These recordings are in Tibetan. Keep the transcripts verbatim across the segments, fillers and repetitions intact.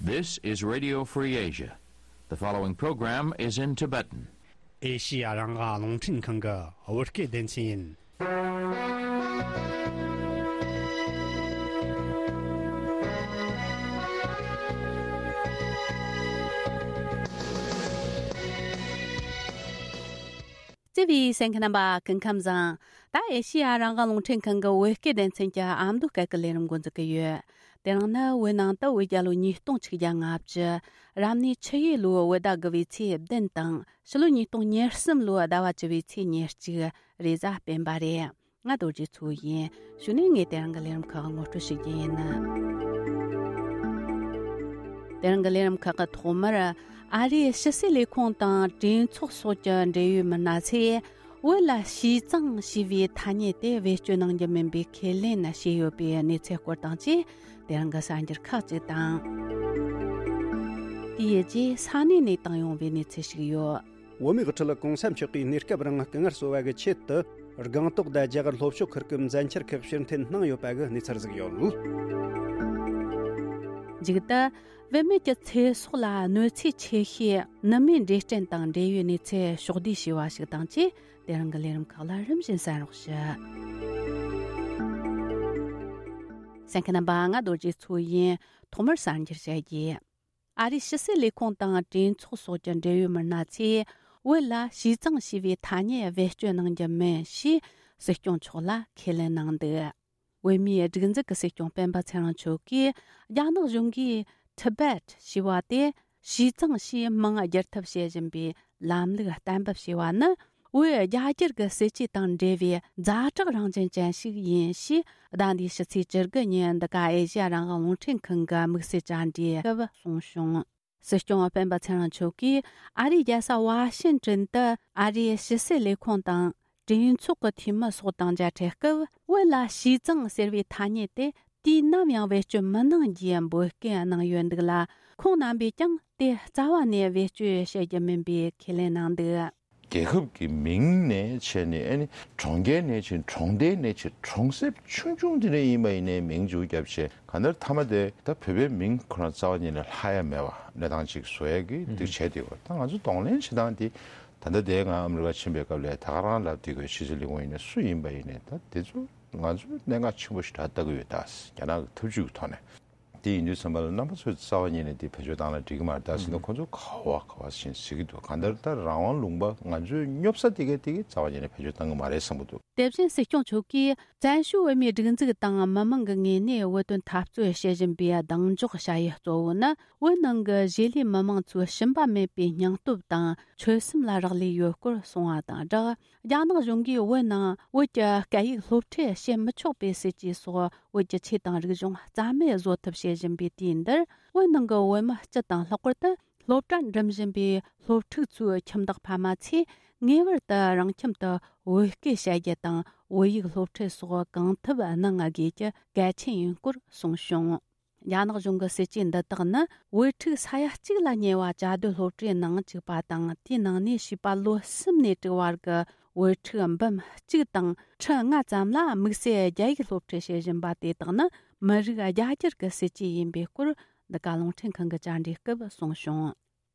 This is Radio Free Asia. The following program is in Tibetan. ཨེ་ཤི་ཡ་རང་དབང་རླུང་འཕྲིན་ཁང་གི་བོད་སྐད་སྡེ་ཚན་ཡིན། བརྩེ་བའི་གསན་མཁན་རྣམ་པ་སྐུ་ཁམས་བཟང་། ད་ཨེ་ཤི་ཡ་རང་དབང་རླུང་འཕྲིན་ཁང་གི་བོད་སྐད་སྡེ་ཚན་གྱི་ཨ་མདོ་སྐད་ཀྱི་ལས་རིམ་འགོ་འཛུགས་ཀྱི་ཡོད། དེ་རིང་ནི་བོད་ནང་དུ་བོད་རྒྱལ་ལོ་ཉིས་སྟོང་ཆིག་བརྒྱ་ལྔ་བཅུ། རབ་གནས་ཆུ་ཡོས་ལོའི་བོད་ཟླ་དགུ་བའི་ཚེས་བདུན་དང་ཕྱི་ལོ་ཉིས་སྟོང་ཉེར་གསུམ་ལོའི་ཟླ་བ་བཅུ་བའི་ཚེས་ཉེར་གཅིག་རེས་གཟའ་སྤེན་པ་རེད། ང་རྡོ་རྗེ་མཚོ་ཡིན། གཞུག་ནས་ངས་དེ་རིང་གི་ལས་རིམ་ཁག་ངོ་སྤྲོད་ཞུ་རྒྱུ་ཡིན། དེ་རིང་གི་ལས་རིམ་ཁག་གི་ཐོག་མར། ཨ་རིའི་ཕྱི་སྲིད་ལས་ཁུངས་དང་གྲོས་ཚོགས་སོགས་ཀྱི་འབྲེལ་ཡོད་མི་སྣ་ཚོས། བོད་ལ་ཞི་ཙང་ཞེས་པའི་ཐ་སྙད་དེ་བེད་སྤྱོད་གནང་རྒྱུ་མིན་པའི་ཁས་ལེན་བྱས་ཡོད་པའི་གནས་ཚུལ་སྐོར་དང་བཅས། དེ་རིང་གི་གསར་འགྱུར་ཁག་ཅིག་དང་། དེའི་རྗེས་ས་གནས་ནས་བཏང་ཡོང་བའི་གནས་ཚུལ་ཞིག་ཡོད། བོད་མིའི་དབུ་ཁྲིད་གོང་ས་མཆོག་གིས་གནས་སྐབས་རིང་སྐུ་ངལ་གསོ་བ་གི་ཆེད་དུ། སྒང་ཏོག་དང་རྒྱ་གར་ལྷོ་ཕྱོགས་ཁུལ་གྱི་མཛད་འཆར་ཁག་ཕྱིར་འཐེན་གནང་ཡོད་པ་གི་གནས་ཚུལ་ཟིག་ཡོད། མཇུག་ཏུ། བུད་མེད་ཀྱི་ཚེ་སྲོག་ལ་གནོད་འཚེ་ཆེ་ཤོས་ནུ་མའི་འབྲས་སྐྲན་དང་འབྲེལ་ཡོད་གནས་ཚུལ་ཕྱོགས་བསྡུས་བྱས་པ་ཞིག་དང་བཅས། དེ་རིང་གི་ལས་རིམ་ཁག་ལ་རིམ་བཞིན་གསན་རོགས་ཞུ། གསན་མཁན་རྣམ་པ། ང་རྡོ་རྗེ་མཚོ་ཡིན། ཐོག་མར་གསར་འགྱུར་བཤད་རྒྱུ། ཨ་རིའི་ཕྱི་སྲིད་ལས་ཁུངས་དང་གྲོས་ཚོགས་སོགས་ཀྱི་འབྲེལ་ཡོད་མི་སྣ་ཚོས། བོད་ལ་ཞི་ཙང་ཞེས་པའི་ཐ་སྙད་བེད་སྤྱོད་གནང་རྒྱུ་མིན་ཞེས་སྲིད་སྐྱོང་མཆོག་ལ་ཁས་ལེན་གནང་འདུག། བོད་མིའི་སྒྲིག་འཛུགས་ཀྱི་སྲིད་སྐྱོང་སྤེན་པ་ཚེ་རིང་མཆོག་གིས། རྒྱ་ནག་གཞུང་གིས་Tibet ཞེས་པ་དེ་ཞི་ཙང་ཞེས་མིང་བསྒྱུར་ཐབས་བྱེད་བཞིན་པའི་ལམ་ལུགས་གཏན་འབེབས་བྱས་པ་ནི། བོད་རྒྱ་སྒེར་གྱི་སྲིད་ཇུས་དང་འབྲེལ་བའི་ཛ་དྲག་རང་བཞིན་ཅན་ཞིག་ཡིན་ཞེས། ཟླ་འདིའི་ཕྱི་ཚེས་བཅུ་དགུ་ཉིན་འདི་ག་ཨེ་ཤེ་ཡ་རང་དབང་རླུང་འཕྲིན་ཁང་གི་དམིགས་བསལ་བཅར་འདྲིའི་སྐབས་གསུངས་བྱུང་། སྲིད་སྐྱོང་སྤེན་པ་ཚེ་རིང་མཆོག་གིས་ཨ་རིའི་རྒྱལ་ས་ཝ་ཤིན་ཏྲན་དུ་ཨ་རིའི་ཕྱི་སྲིད་ལས་ཁུངས་དང་གྲོས་ཚོགས་ཀྱི་འཐུས་མི་སོགས་དང་མཇལ་འཕྲད་སྐབས། བོད་ལ་ཞི་ཙང་ཟེར་བའི་ཐ་སྙད་དེ་དུས་ནམ་ཡང་བེད་སྤྱོད་མི་གནང་རྒྱུའི་འབོད་སྐུལ་གནང་ཡོད་འདུག་ལ། ཁོང་རྣམ་པས་ཀྱང་དེ་རྩ་བ་ནས་བེད་སྤྱོད་བྱེད་རྒྱུ་མིན་པའི་ཁས་ལེན་གནང་འདུག། རྒྱལ་ཁབ་ཀྱི་མིང་ནས་བྱས་ནས། ཨ་ནི་གྲོང་ཁྱེར་ནས་བྱས། གྲོང་རྡལ་ནས་བྱས། གྲོང་གསེབ་ཆུང་ཆུང་དེ་འདྲ་ཡིན་པ་ཡིན་ནའི་མིང་ཅིག་བརྒྱབ་བྱས། གང་ལྟར་མཐའ་མ་དེ་ད་བོད་པའི་མིང་ཁོ་རང་རྩ་བ་ཉིད་ནས་ལྷག་ཡ་མེད་པ་གནས་སྟངས་ཅིག་བཟོ་ཡ་གི་འདུག་བྱས་ཏེ། ད་ང་ཚོ་གདོང་ལེན་བྱེད་སྟངས་དེ། ད་ལྟ་དེ་ང་ཨ་མི་རི་ཀ་ཕྱིན་པའི་སྐབས་ལ་ད་ག་རང་ལབ་དེ་གི་ཕྱི་སྲིད་ལས་ཁུངས་ཡིན་ནའི་སུ་ཡིན་པ་ཡིན་ནའི། ད་དེ་ཚོ་ང་ཚོས་གནད་འགག་ཆེན་པོ་ཞིག་ད་ལྟ་གི་ཡོད། ད་རྒྱ་ནག་གི་ཐབས་ཇུས་ཀྱི་ཐོག་ནས། དེ་ཡིན་དུས་ཙམ་པ་ལ་རྣམ་པ་ཚོས་རྩ་བ་ཉིད་ནས་དེ་བེད་སྤྱོད་བཏང་ན་འགྲིག་གི་མ་རེད། ད་ཟིན་ན་ཁོ་ཚོ་ག་བ་ག་བ་ཞིག་ཟེར་གི་འདུག། གང་ལྟར་ད་རང་དབང་ལུང་པ་ང་ཚོའི་སྙོབ་ས་དེ་གའི་དེ་གའི་རྩ་བ་ཉིད་ནས་བེད་སྤྱོད་བཏང་གི་མ་རེད་བསམ་གི་འདུག། དེ་བཞིན་སྲིད་སྐྱོང་མཆོག་གིས། བཙན་བྱོལ་བོད་མིའི་སྒྲིག་འཛུགས་དང་མི་མང་གི་ངོས་ནས་བོད་དོན་འཐབ་རྩོད་བྱེད་བཞིན་པའི་གདེང་འཇོག་བྱ་ཡུལ་གཙོ་བོ་ནི། བོད་ནང་གི་གཞིས་ལུས་མི་མང་ཚོའི་ཞུམ་པ་མེད་པའི་སྙིང་སྟོབས་དང་ཆོད་སེམས་ལ་རག་ལས་ཡོད་སྐོར་གསུངས་པ་དང་སྦྲགས། རྒྱ་ནག་གཞུང་གིས་བོད་ནང་བོད་ཀྱི་སྐད་ཡིག་སློབ་ཁྲིད་བྱེད་མི་ཆོག་པའི་སྲིད་ཇུས་སོགས། བོད་ཀྱི་ཆོས་དང་རིག་གཞུང་རྩ་མེད་བཟོ་ཐབས་བྱེད་བཞིན་པའི་དུས་འདིར། བོད་ནང་གི་བོད་མི་སྤྱི་དང་། ལྷག་པར་དུ་སློབ་གྲྭ་འགྲིམ་བཞིན་པའི་སློབ་ཕྲུག་ཚོའི་ཁྱིམ་བདག་ཕ་མ་ཚོས་ངེས་པར་དུ་རང་ཁྱིམ་དུ་བོད་སྐད་བཤད་རྒྱུ་དང་། བོད་ཡིག་སློབ་ཁྲིད་སོགས་གང་ཐུབ་གནང་དགོས་རྒྱུ་གལ་ཆེན་ཡིན་སྐོར་གསུངས་བྱུང་། རྒྱ་ནག་གཞུང་གི་སྲིད་ཇུས་འདི་དག་ནི། བོད་ཕྲུག་ས་ཡ་གཅིག་ལ་ཉེ་བ་བཅའ་སྡོད་སློབ་གྲྭའི་ནང་བཅུག་པ་དང་། དེའི་ནང་ནས་བྱིས་པ་ལོ་གསུམ་ནས་དྲུག་བར་གྱི་བོད་ཕྲུག་འབུམ་གཅིག་དང་ཁྲི་ལྔ་ཙམ་ལ་དམིགས་བསལ་རྒྱ་ཡིག་སློབ་ཁྲིད་བྱེད་བཞིན་པ་དེ་དག་ནི་མི་རིགས་རྒྱ་སྒྱུར་གྱི་སྲིད་ཇུས་ཡིན་པའི་སྐོར། འདི་ག་རླུང་འཕྲིན་ཁང་གི་བཅར་འདྲིའི་སྐབས་གསུངས་བྱུང་།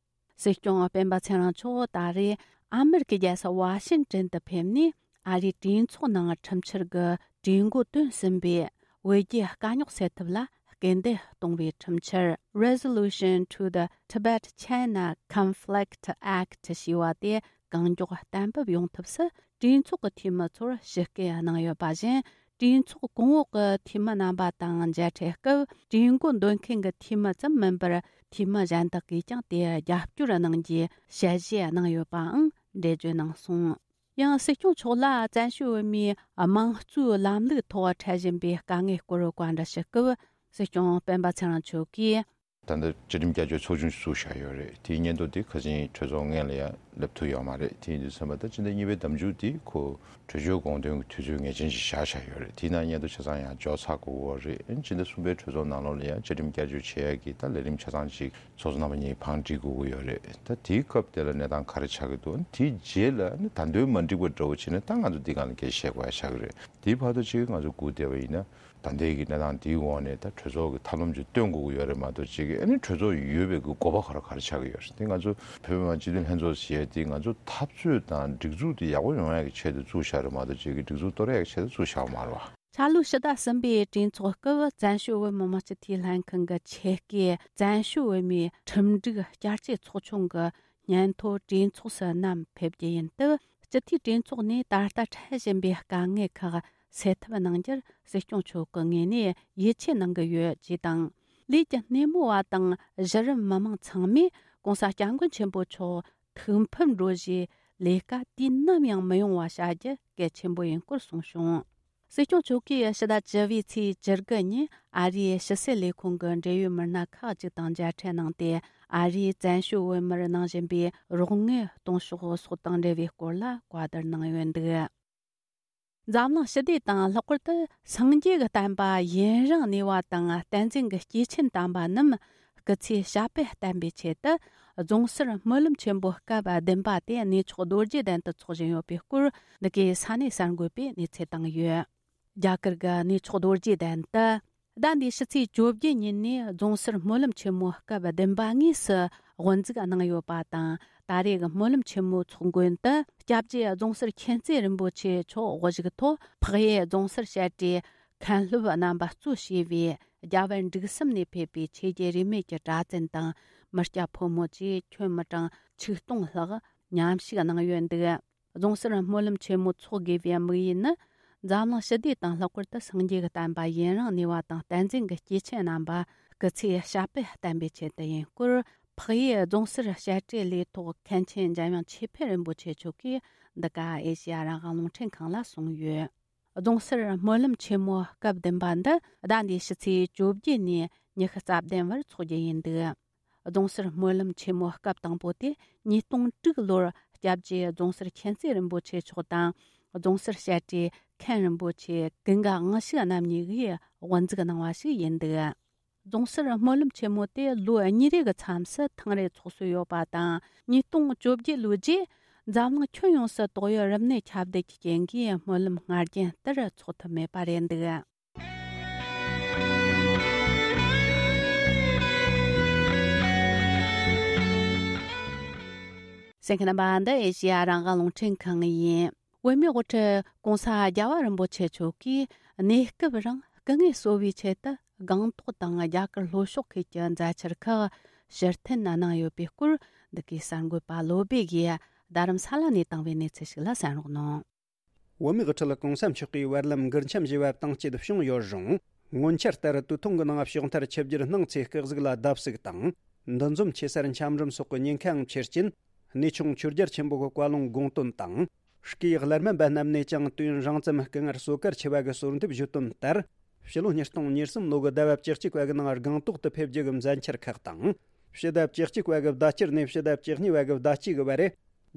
སྲིད་སྐྱོང་སྤེན་པ་ཚེ་རིང་མཆོག་ད་རེས་ཨ་མེ་རི་ཀའི་རྒྱལ་ས་ཝ་ཤིན་ཏན་དུ་ཕེབས་ནས། ཨ་རིའི་གྲོས་ཚོགས་ནང་ཁྲིམས་འཆར་གྱི་གྲོས་འགོ་བཏོན་ཟིན་པའི་བོད་རྒྱའི་དཀའ་རྙོག་སེལ་ཐབས་ལ་སྐུལ་འདེད་གཏོང་བའི་ཁྲིམས་འཆར། Resolution to the Tibet-China Conflict Act ཞེས་པ་དེ་གང་མགྱོགས་གཏན་འབེབས་ཡོང་ཐབས་སུ་གྲོས་ཚོགས་ཀྱི་འཐུས་མི་ཚོར་ཞུ་སྐུལ་གནང་ཡོད་པ་བཞིན། གྲོས་ཚོགས་གོང་འོག་གི་འཐུས་མི་རྣམ་པ་དང་མཇལ་འཕྲད་སྐབས། གྲོས་འགོ་འདོན་མཁན་གྱི་འཐུས་མི་ཙམ་མིན་པར། འཐུས་མི་གཞན་དག་གིས་ཀྱང་དེར་རྒྱབ་སྐྱོར་གནང་རྒྱུའི་ཞལ་བཞེས་གནང་ཡོད་པའང་འགྲེལ་བརྗོད་གནང་སོང་། ཡང་སྲིད་སྐྱོང་མཆོག་ལ་བཙན་བྱོལ་བོད་མིའི་དམངས་གཙོའི་ལམ་ལུགས་ཐོག་འཕྲད་བཞིན་པའི་དཀའ་ངལ་སྐོར་བཀའ་འདྲི་ཞུ་སྐབས། སྲིད་སྐྱོང་སྤེན་པ་ཚེ་རིང་མཆོག་གིས། ད་ལྟ་སྤྱི་ཁྲིམས་བསྐྱར་བཅོས་ཚོགས་ཆུང་ཞིག་བཙུགས་བཞག་ཡོད་རེད། དེའི་སྙན་ཐོ་དེ་ཁ་སང་གྲོས་ཚོགས་སྔོན་ལ་ཡང་ སླེབས་ཐུབ་ཡོད་མ་རེད། དེ་ཡིན་དུས་ཙམ་པ་ད་སྤྱི་ཟླ་གཉིས་པའི་ཟླ་མཇུག་དེ་ཁོ་གྲོས་ཆོད་དགོངས་དོན་གྱི་དུས་ཚོད་ངེས་ཅན་ཞིག་བཞག་བཞག་ཡོད་རེད། དེའི་ནང་མཉམ་དུ་ཆ་ཚང་ཡང་འཇོག་ཚར་དགོས་ཀྱི་ཡོད་རེད། སྤྱི་ཟླ་གསུམ་པའི་གྲོས་ཚོགས་ནང་ལོགས་ལ་ཡང་བཅའ་ཁྲིམས་བསྐྱར་བཅོས་བྱེད་ཡག་གི་ད་ལས་རིམ་ཆ་ཚང་ཅིག་ཚོགས་གཙོ་རྣམ་པ་གཉིས་བང་སྒྲིག་དགོས་ཀྱི་ཡོད་རེད། ད་དེའི་སྐབས་དེ་ལ་གནས་སྟངས་ག་རེ་ཆགས་ཀྱི་འདུག་དེའི་རྗེས་ལ་ནི་ད་དུང་མ་འགྲིག་པ་འདྲ་བོ་བྱས་ན་ད་ང་ཚོ་འདི་སྒང་ལ་སྐད་ཆ་བཤད་དགོས་ཡག་ཆགས་ཀྱི་རེད། དེའི་བར་དུ་ཅིག་ང་ཚོ་སྒུག་བསྡད་པ་ཡིན་ན། ད་ལྟའི་གི་གནས་སྟངས་འདིའི་འོག་ནས་ད་གྲོས་ཚོགས་ཀྱི་ཐབས་ལམ་ཅིག་སྟོན་དགོས་ཀྱི་ཡོད་རེད་མ་གཏོགས་ཅིག་གི་ཨ་ནི་གྲོས་ཚོགས་ཡོད་པའི་གི་དགོས་པ་ག་རེ་ག་རེ་ཆགས་ཀྱི་ཡོད་རེད། དེ་ང་ཚོ་བོད་མི་མང་སྤྱི་འཐུས་ལྷན་ཚོགས་ཟེར་ཡས་དེ་ང་ཚོ་འཐབ་རྩོད་དང་སྒྲིག་འཛུགས་དེ་ཡག་པོ་ཡོང་ཡག་གི་ཆེད་དུ་བཙུགས་བཞག་རེད་མ་གཏོགས་ཅིག་གི་སྒྲིག་འཛུགས་གཏོར་ཡག་གི་ཆེད་དུ་བཙུགས་བཞག་པ་མ་རེད་བ། འཆར་ལོ་ཕྱི་ཟླ་གསུམ་པའི་གྲོས་ཚོགས་སྐབས་བཙན་བྱོལ་བོད་མི་མང་སྤྱི་འཐུས་ལྷན་ཁང་གི་ཆེད་སྐད་བཙན་བྱོལ་བོད་མིའི་ཁྲིམས་སྒྲིག་བསྐྱར་བཅོས་ཚོགས་ཆུང་གི་སྙན་ཐོ་གྲོས་ཚོགས་སུ་བསྣམས་ཕེབས་རྒྱུ་ཡིན་སྟབས། སྤྱི་འཐུས་གྲོས་ཚོགས་ནས་ད་ལྟ་འཕྲད་བཞིན་པའི་དཀའ་ངལ་ཁག་སེལ་ཐབས་གནང་རྒྱུར་སྲིད་སྐྱོང་མཆོག་གི་ངོས་ནས་ཡིད་ཆེས་གནང་གི་ཡོད་ཅེས་དང་། ལས་ཀྱི་སྣེ་མོ་བ་དང་གཞི་རིམ་མི་མང་ཚང་མས་༸གོང་ས་༸སྐྱབས་མགོན་ཆེན་པོ་མཆོག་ཐུགས་ཕམ་འགྲོ་རྒྱུའི་ལས་ཀ་དུས་ནམ་ཡང་མི་ཡོང་བ་བྱ་རྒྱུ་གལ་ཆེན་པོ་ཡིན་སྐོར་གསུངས་བྱུང་། སྲིད་སྐྱོང་མཆོག་གིས་ཕྱི་ཟླ་བཅུ་པའི་ཚེས་བཅུ་དགུ་ཉིན་ཨ་རིའི་ཕྱི་སྲིད་ལས་ཁུངས་ཀྱི་འབྲེལ་ཡོད་མི་སྣ་ཁག་ཅིག་དང་མཇལ་འཕྲད་གནང་སྟེ། ཨ་རིའི་བཙན་བྱོལ་བོད་མིར་གནང་བཞིན་པའི་རོགས་དངུལ་གཏོང་ཕྱོགས་སོགས་དང་འབྲེལ་བའི་སྐོར་ལ་བཀའ་བསྡུར་གནང་ཡོད་འདུག་འཛམ་གླིང་ཞི་བདེ་དང་ལྷག་པར་དུ་སངས་རྒྱས་ཀྱི་བསྟན་པ་ཡུན་རིང་གནས་པ་དང་བསྟན་འཛིན་གྱི་སྐྱེས་ཆེན་དམ་པ་རྣམས་སྐུ་ཚེ་ཞབས་པད་བརྟན་པའི་ཆེད་དུ། རྫོང་སར་སྨོན་ལམ་ཆེན་པོ་སྐབས་བདུན་པ་དེ་གནས་མཆོག་རྡོ་རྗེ་གདན་དུ་འཚོགས་བཞིན་ཡོད་པའི་སྐོར་འདི་གའི་ས་གནས་གསར་འགོད་པས་གནས་ཚུལ་བཏང་ཡོད། རྒྱ་གར་གྱི་གནས་མཆོག་རྡོ་རྗེ་གདན་དུ། ཟླ་འདིའི་ཕྱི་ཚེས་བཅོ་བརྒྱད་ཉིན་ནས་རྫོང་སར་སྨོན་ལམ་ཆེན་མོ་སྐབས་བདུན་པ་དངོས་སུ་དབུ་འཛུགས་གནང་ཡོད་པ་དང་། ད་རེས་ཀྱི་སྨོན་ལམ་ཆེན་མོའི་ཚོགས་མགོན་དུ་སྐྱབས་རྗེ་རྫོང་སར་མཁྱེན་བརྩེ་རིན་པོ་ཆེ་མཆོག་དབུ་བཞུགས་ཐོག་འཕགས་ཡུལ་རྫོང་སར་བཤད་གྲྭའི་མཁན་སློབ་རྣམ་པ་གཙོ་བྱས་པའི་རྒྱ་བལ་འབྲུག་གསུམ་ནས་ཕེབས་པའི་ཆོས་བརྒྱུད་རིས་མེད་ཀྱི་གྲྭ་བཙུན་དང་མི་སྐྱ་ཕོ་མོ་བཅས་ཁྱོན་མི་གྲངས་ཆིག་སྟོང་ལྷག་མཉམ་ཞུགས་གནང་ཡོད་འདུག་རྫོང་སར་སྨོན་ལམ་ཆེན་མོ་འཚོགས་དགོས་པའི་དམིགས་ཡུལ་ནི། འཛམ་གླིང་ཞི་བདེ་དང་ལྷག་པར་དུ་སངས་རྒྱས་ཀྱི་བསྟན་པ་ཡུན་རིང་གནས་པ་དང་བསྟན་འཛིན་གྱི་སྐྱེས་ཆེན་རྣམ་པ་སྐུ་ཚེ་ཞབས་པད་བརྟན་པའི་ཆེད་དུ་ཡིན་སྐོར། འཕགས་ཡུལ་རྫོང་སར་བཤད་གྲྭའི་ལས་ཐོག་མཁན་ཆེན་འཇམ་དབྱངས་ཆོས་འཕེལ་རིན་པོ་ཆེ་མཆོག་གིས་འདི་ག་ཨེ་ཤེ་ཡ་རང་དབང་རླུང་འཕྲིན་ཁང་ལ་གསུངས་ཡོད། རྫོང་སར་སྨོན་ལམ་ཆེན་མོ་སྐབས་བདུན་པ་འདི་ཟླ་འདིའི་ཕྱི་ཚེས་བཅོ་བརྒྱད་ནས་ཉི་ཤུ་རྩ་བདུན་བར་འཚོགས་རྒྱུ་ཡིན་འདུག་རྫོང་སར་སྨོན་ལམ་ཆེན་མོ་སྐབས་དང་པོ་དེ་ཉིས་སྟོང་དྲུག་ལོར་སྐྱབས་རྗེ་རྫོང་སར་མཁྱེན་བརྩེ་རིན་པོ་ཆེ་མཆོག་དང་། རྫོང་སར་བཤད་གྲྭའི་མཁན་རིན་པོ་ཆེ་ཀུན་དགའ་དབང་ཕྱུག་རྣམ་གཉིས་ཀྱིས་དབུ་འཛུགས་གནང་བ་ཞིག་ཡིན་འདུག་རྫོང་སར་སྨོན་ལམ་ཆེན་མོ་དེ་ལོ་གཉིས་རེ་གི་མཚམས་སུ་ཐེངས་རེ་འཚོགས་སྲོལ་ཡོད་པ་དང་། ཉིས་སྟོང་བཅོ་བརྒྱད་ལོའི་རྗེས་འཛམ་གླིང་ཁྱོན་ཡོངས་སུ་ཏོག་དབྱིབས་རིམས་ནད་ཁྱབ་གདལ་གྱི་རྐྱེན་གྱིས་སྨོན་ལམ་སྔར་རྒྱུན་ལྟར་འཚོགས་ཐུབ་མེད་པ་རེད་འདུག་གསན་མཁན་རྣམ་པ། འདི་ཨེ་ཤེ་ཡ་རང་དབང་རླུང་འཕྲིན་ཁང་ཡིན། བོད་མིའི་དབུ་ཁྲིད་༸གོང་ས་༸རྒྱལ་བ་རིན་པོ་ཆེ་མཆོག་གིས་གནས་སྐབས་རིང་སྐུ་ངལ་གསོ་བའི་ཆེད་དུ་སྒང་ཏོག་དང་རྒྱ་གར་ལྷོ་ཕྱོགས་ཁུལ་གྱི་མཛད་འཆར་ཁག་ཕྱིར་འཐེན་གནང་ཡོད་པའི་སྐོར། འདི་གའི་གསར་འགོད་པ་བློ་སྦེ་གིས་རྡ་རམ་ས་ལ་ནས་བཏང་བའི་གནས་ཚུལ་ཞིག་ལ་གསན་རོགས་གནང་། བོད་མིའི་དབུ་ཁྲིད་༸གོང་ས་མཆོག་གིས་བར་ལམ་མགུར་འཆམ་ཞེས་པ་བཏང་སྤྱད་བྱུང་ཡོད་རུང་། སྔོན་ཆད་ལྟར་དུས་ཐུང་གི་ནང་ཞོགས་མཐར་ཆིབས་བསྒྱུར་གནང་ཚེ་སྐུ་གཟུགས་ལ་བརྡབ་གསིག་དང་། འདུ་འཛོམས་ཆེ་སར་འཆམ་རིམ་སོགས་ཀྱི་ཉེན་ཁའང་ཆེ་རྐྱེན། གནས་ཆུང་ཆོས་རྒྱལ་ཆེན་པོ་གི་བཀའ་ལུང་དགོངས་དོན་དང་། སྐུའི་སླར་སྨན་པ་རྣམས་ནས་ཀྱང་དུས་ཡུན་རིང་ཙམ་སྐུ་ངལ་གསོ་གར་ཆེ་བ་གི་གསོལ་འདེབས་ཞུས་དོན་ལྟར། ཕྱི་ལོ་ཉིས་སྟོང་ཉེར་གསུམ་ལོ་གི་ཟླ་བ་བཅུ་གཅིག་པ་གི་ནང་སྒང་ཏོག་ཏུ་ཕེབས་རྒྱུ་གི་མཛད་འཆར་ཁག་དང་། ཕྱི་ཟླ་བཅུ་གཅིག་པ་གི་ཟླ་དཀྱིལ་ནས་ཕྱི་ཟླ་བཅུ་གཉིས་པ་གི་ཟླ་དཀྱིལ་གི་བར་རེ།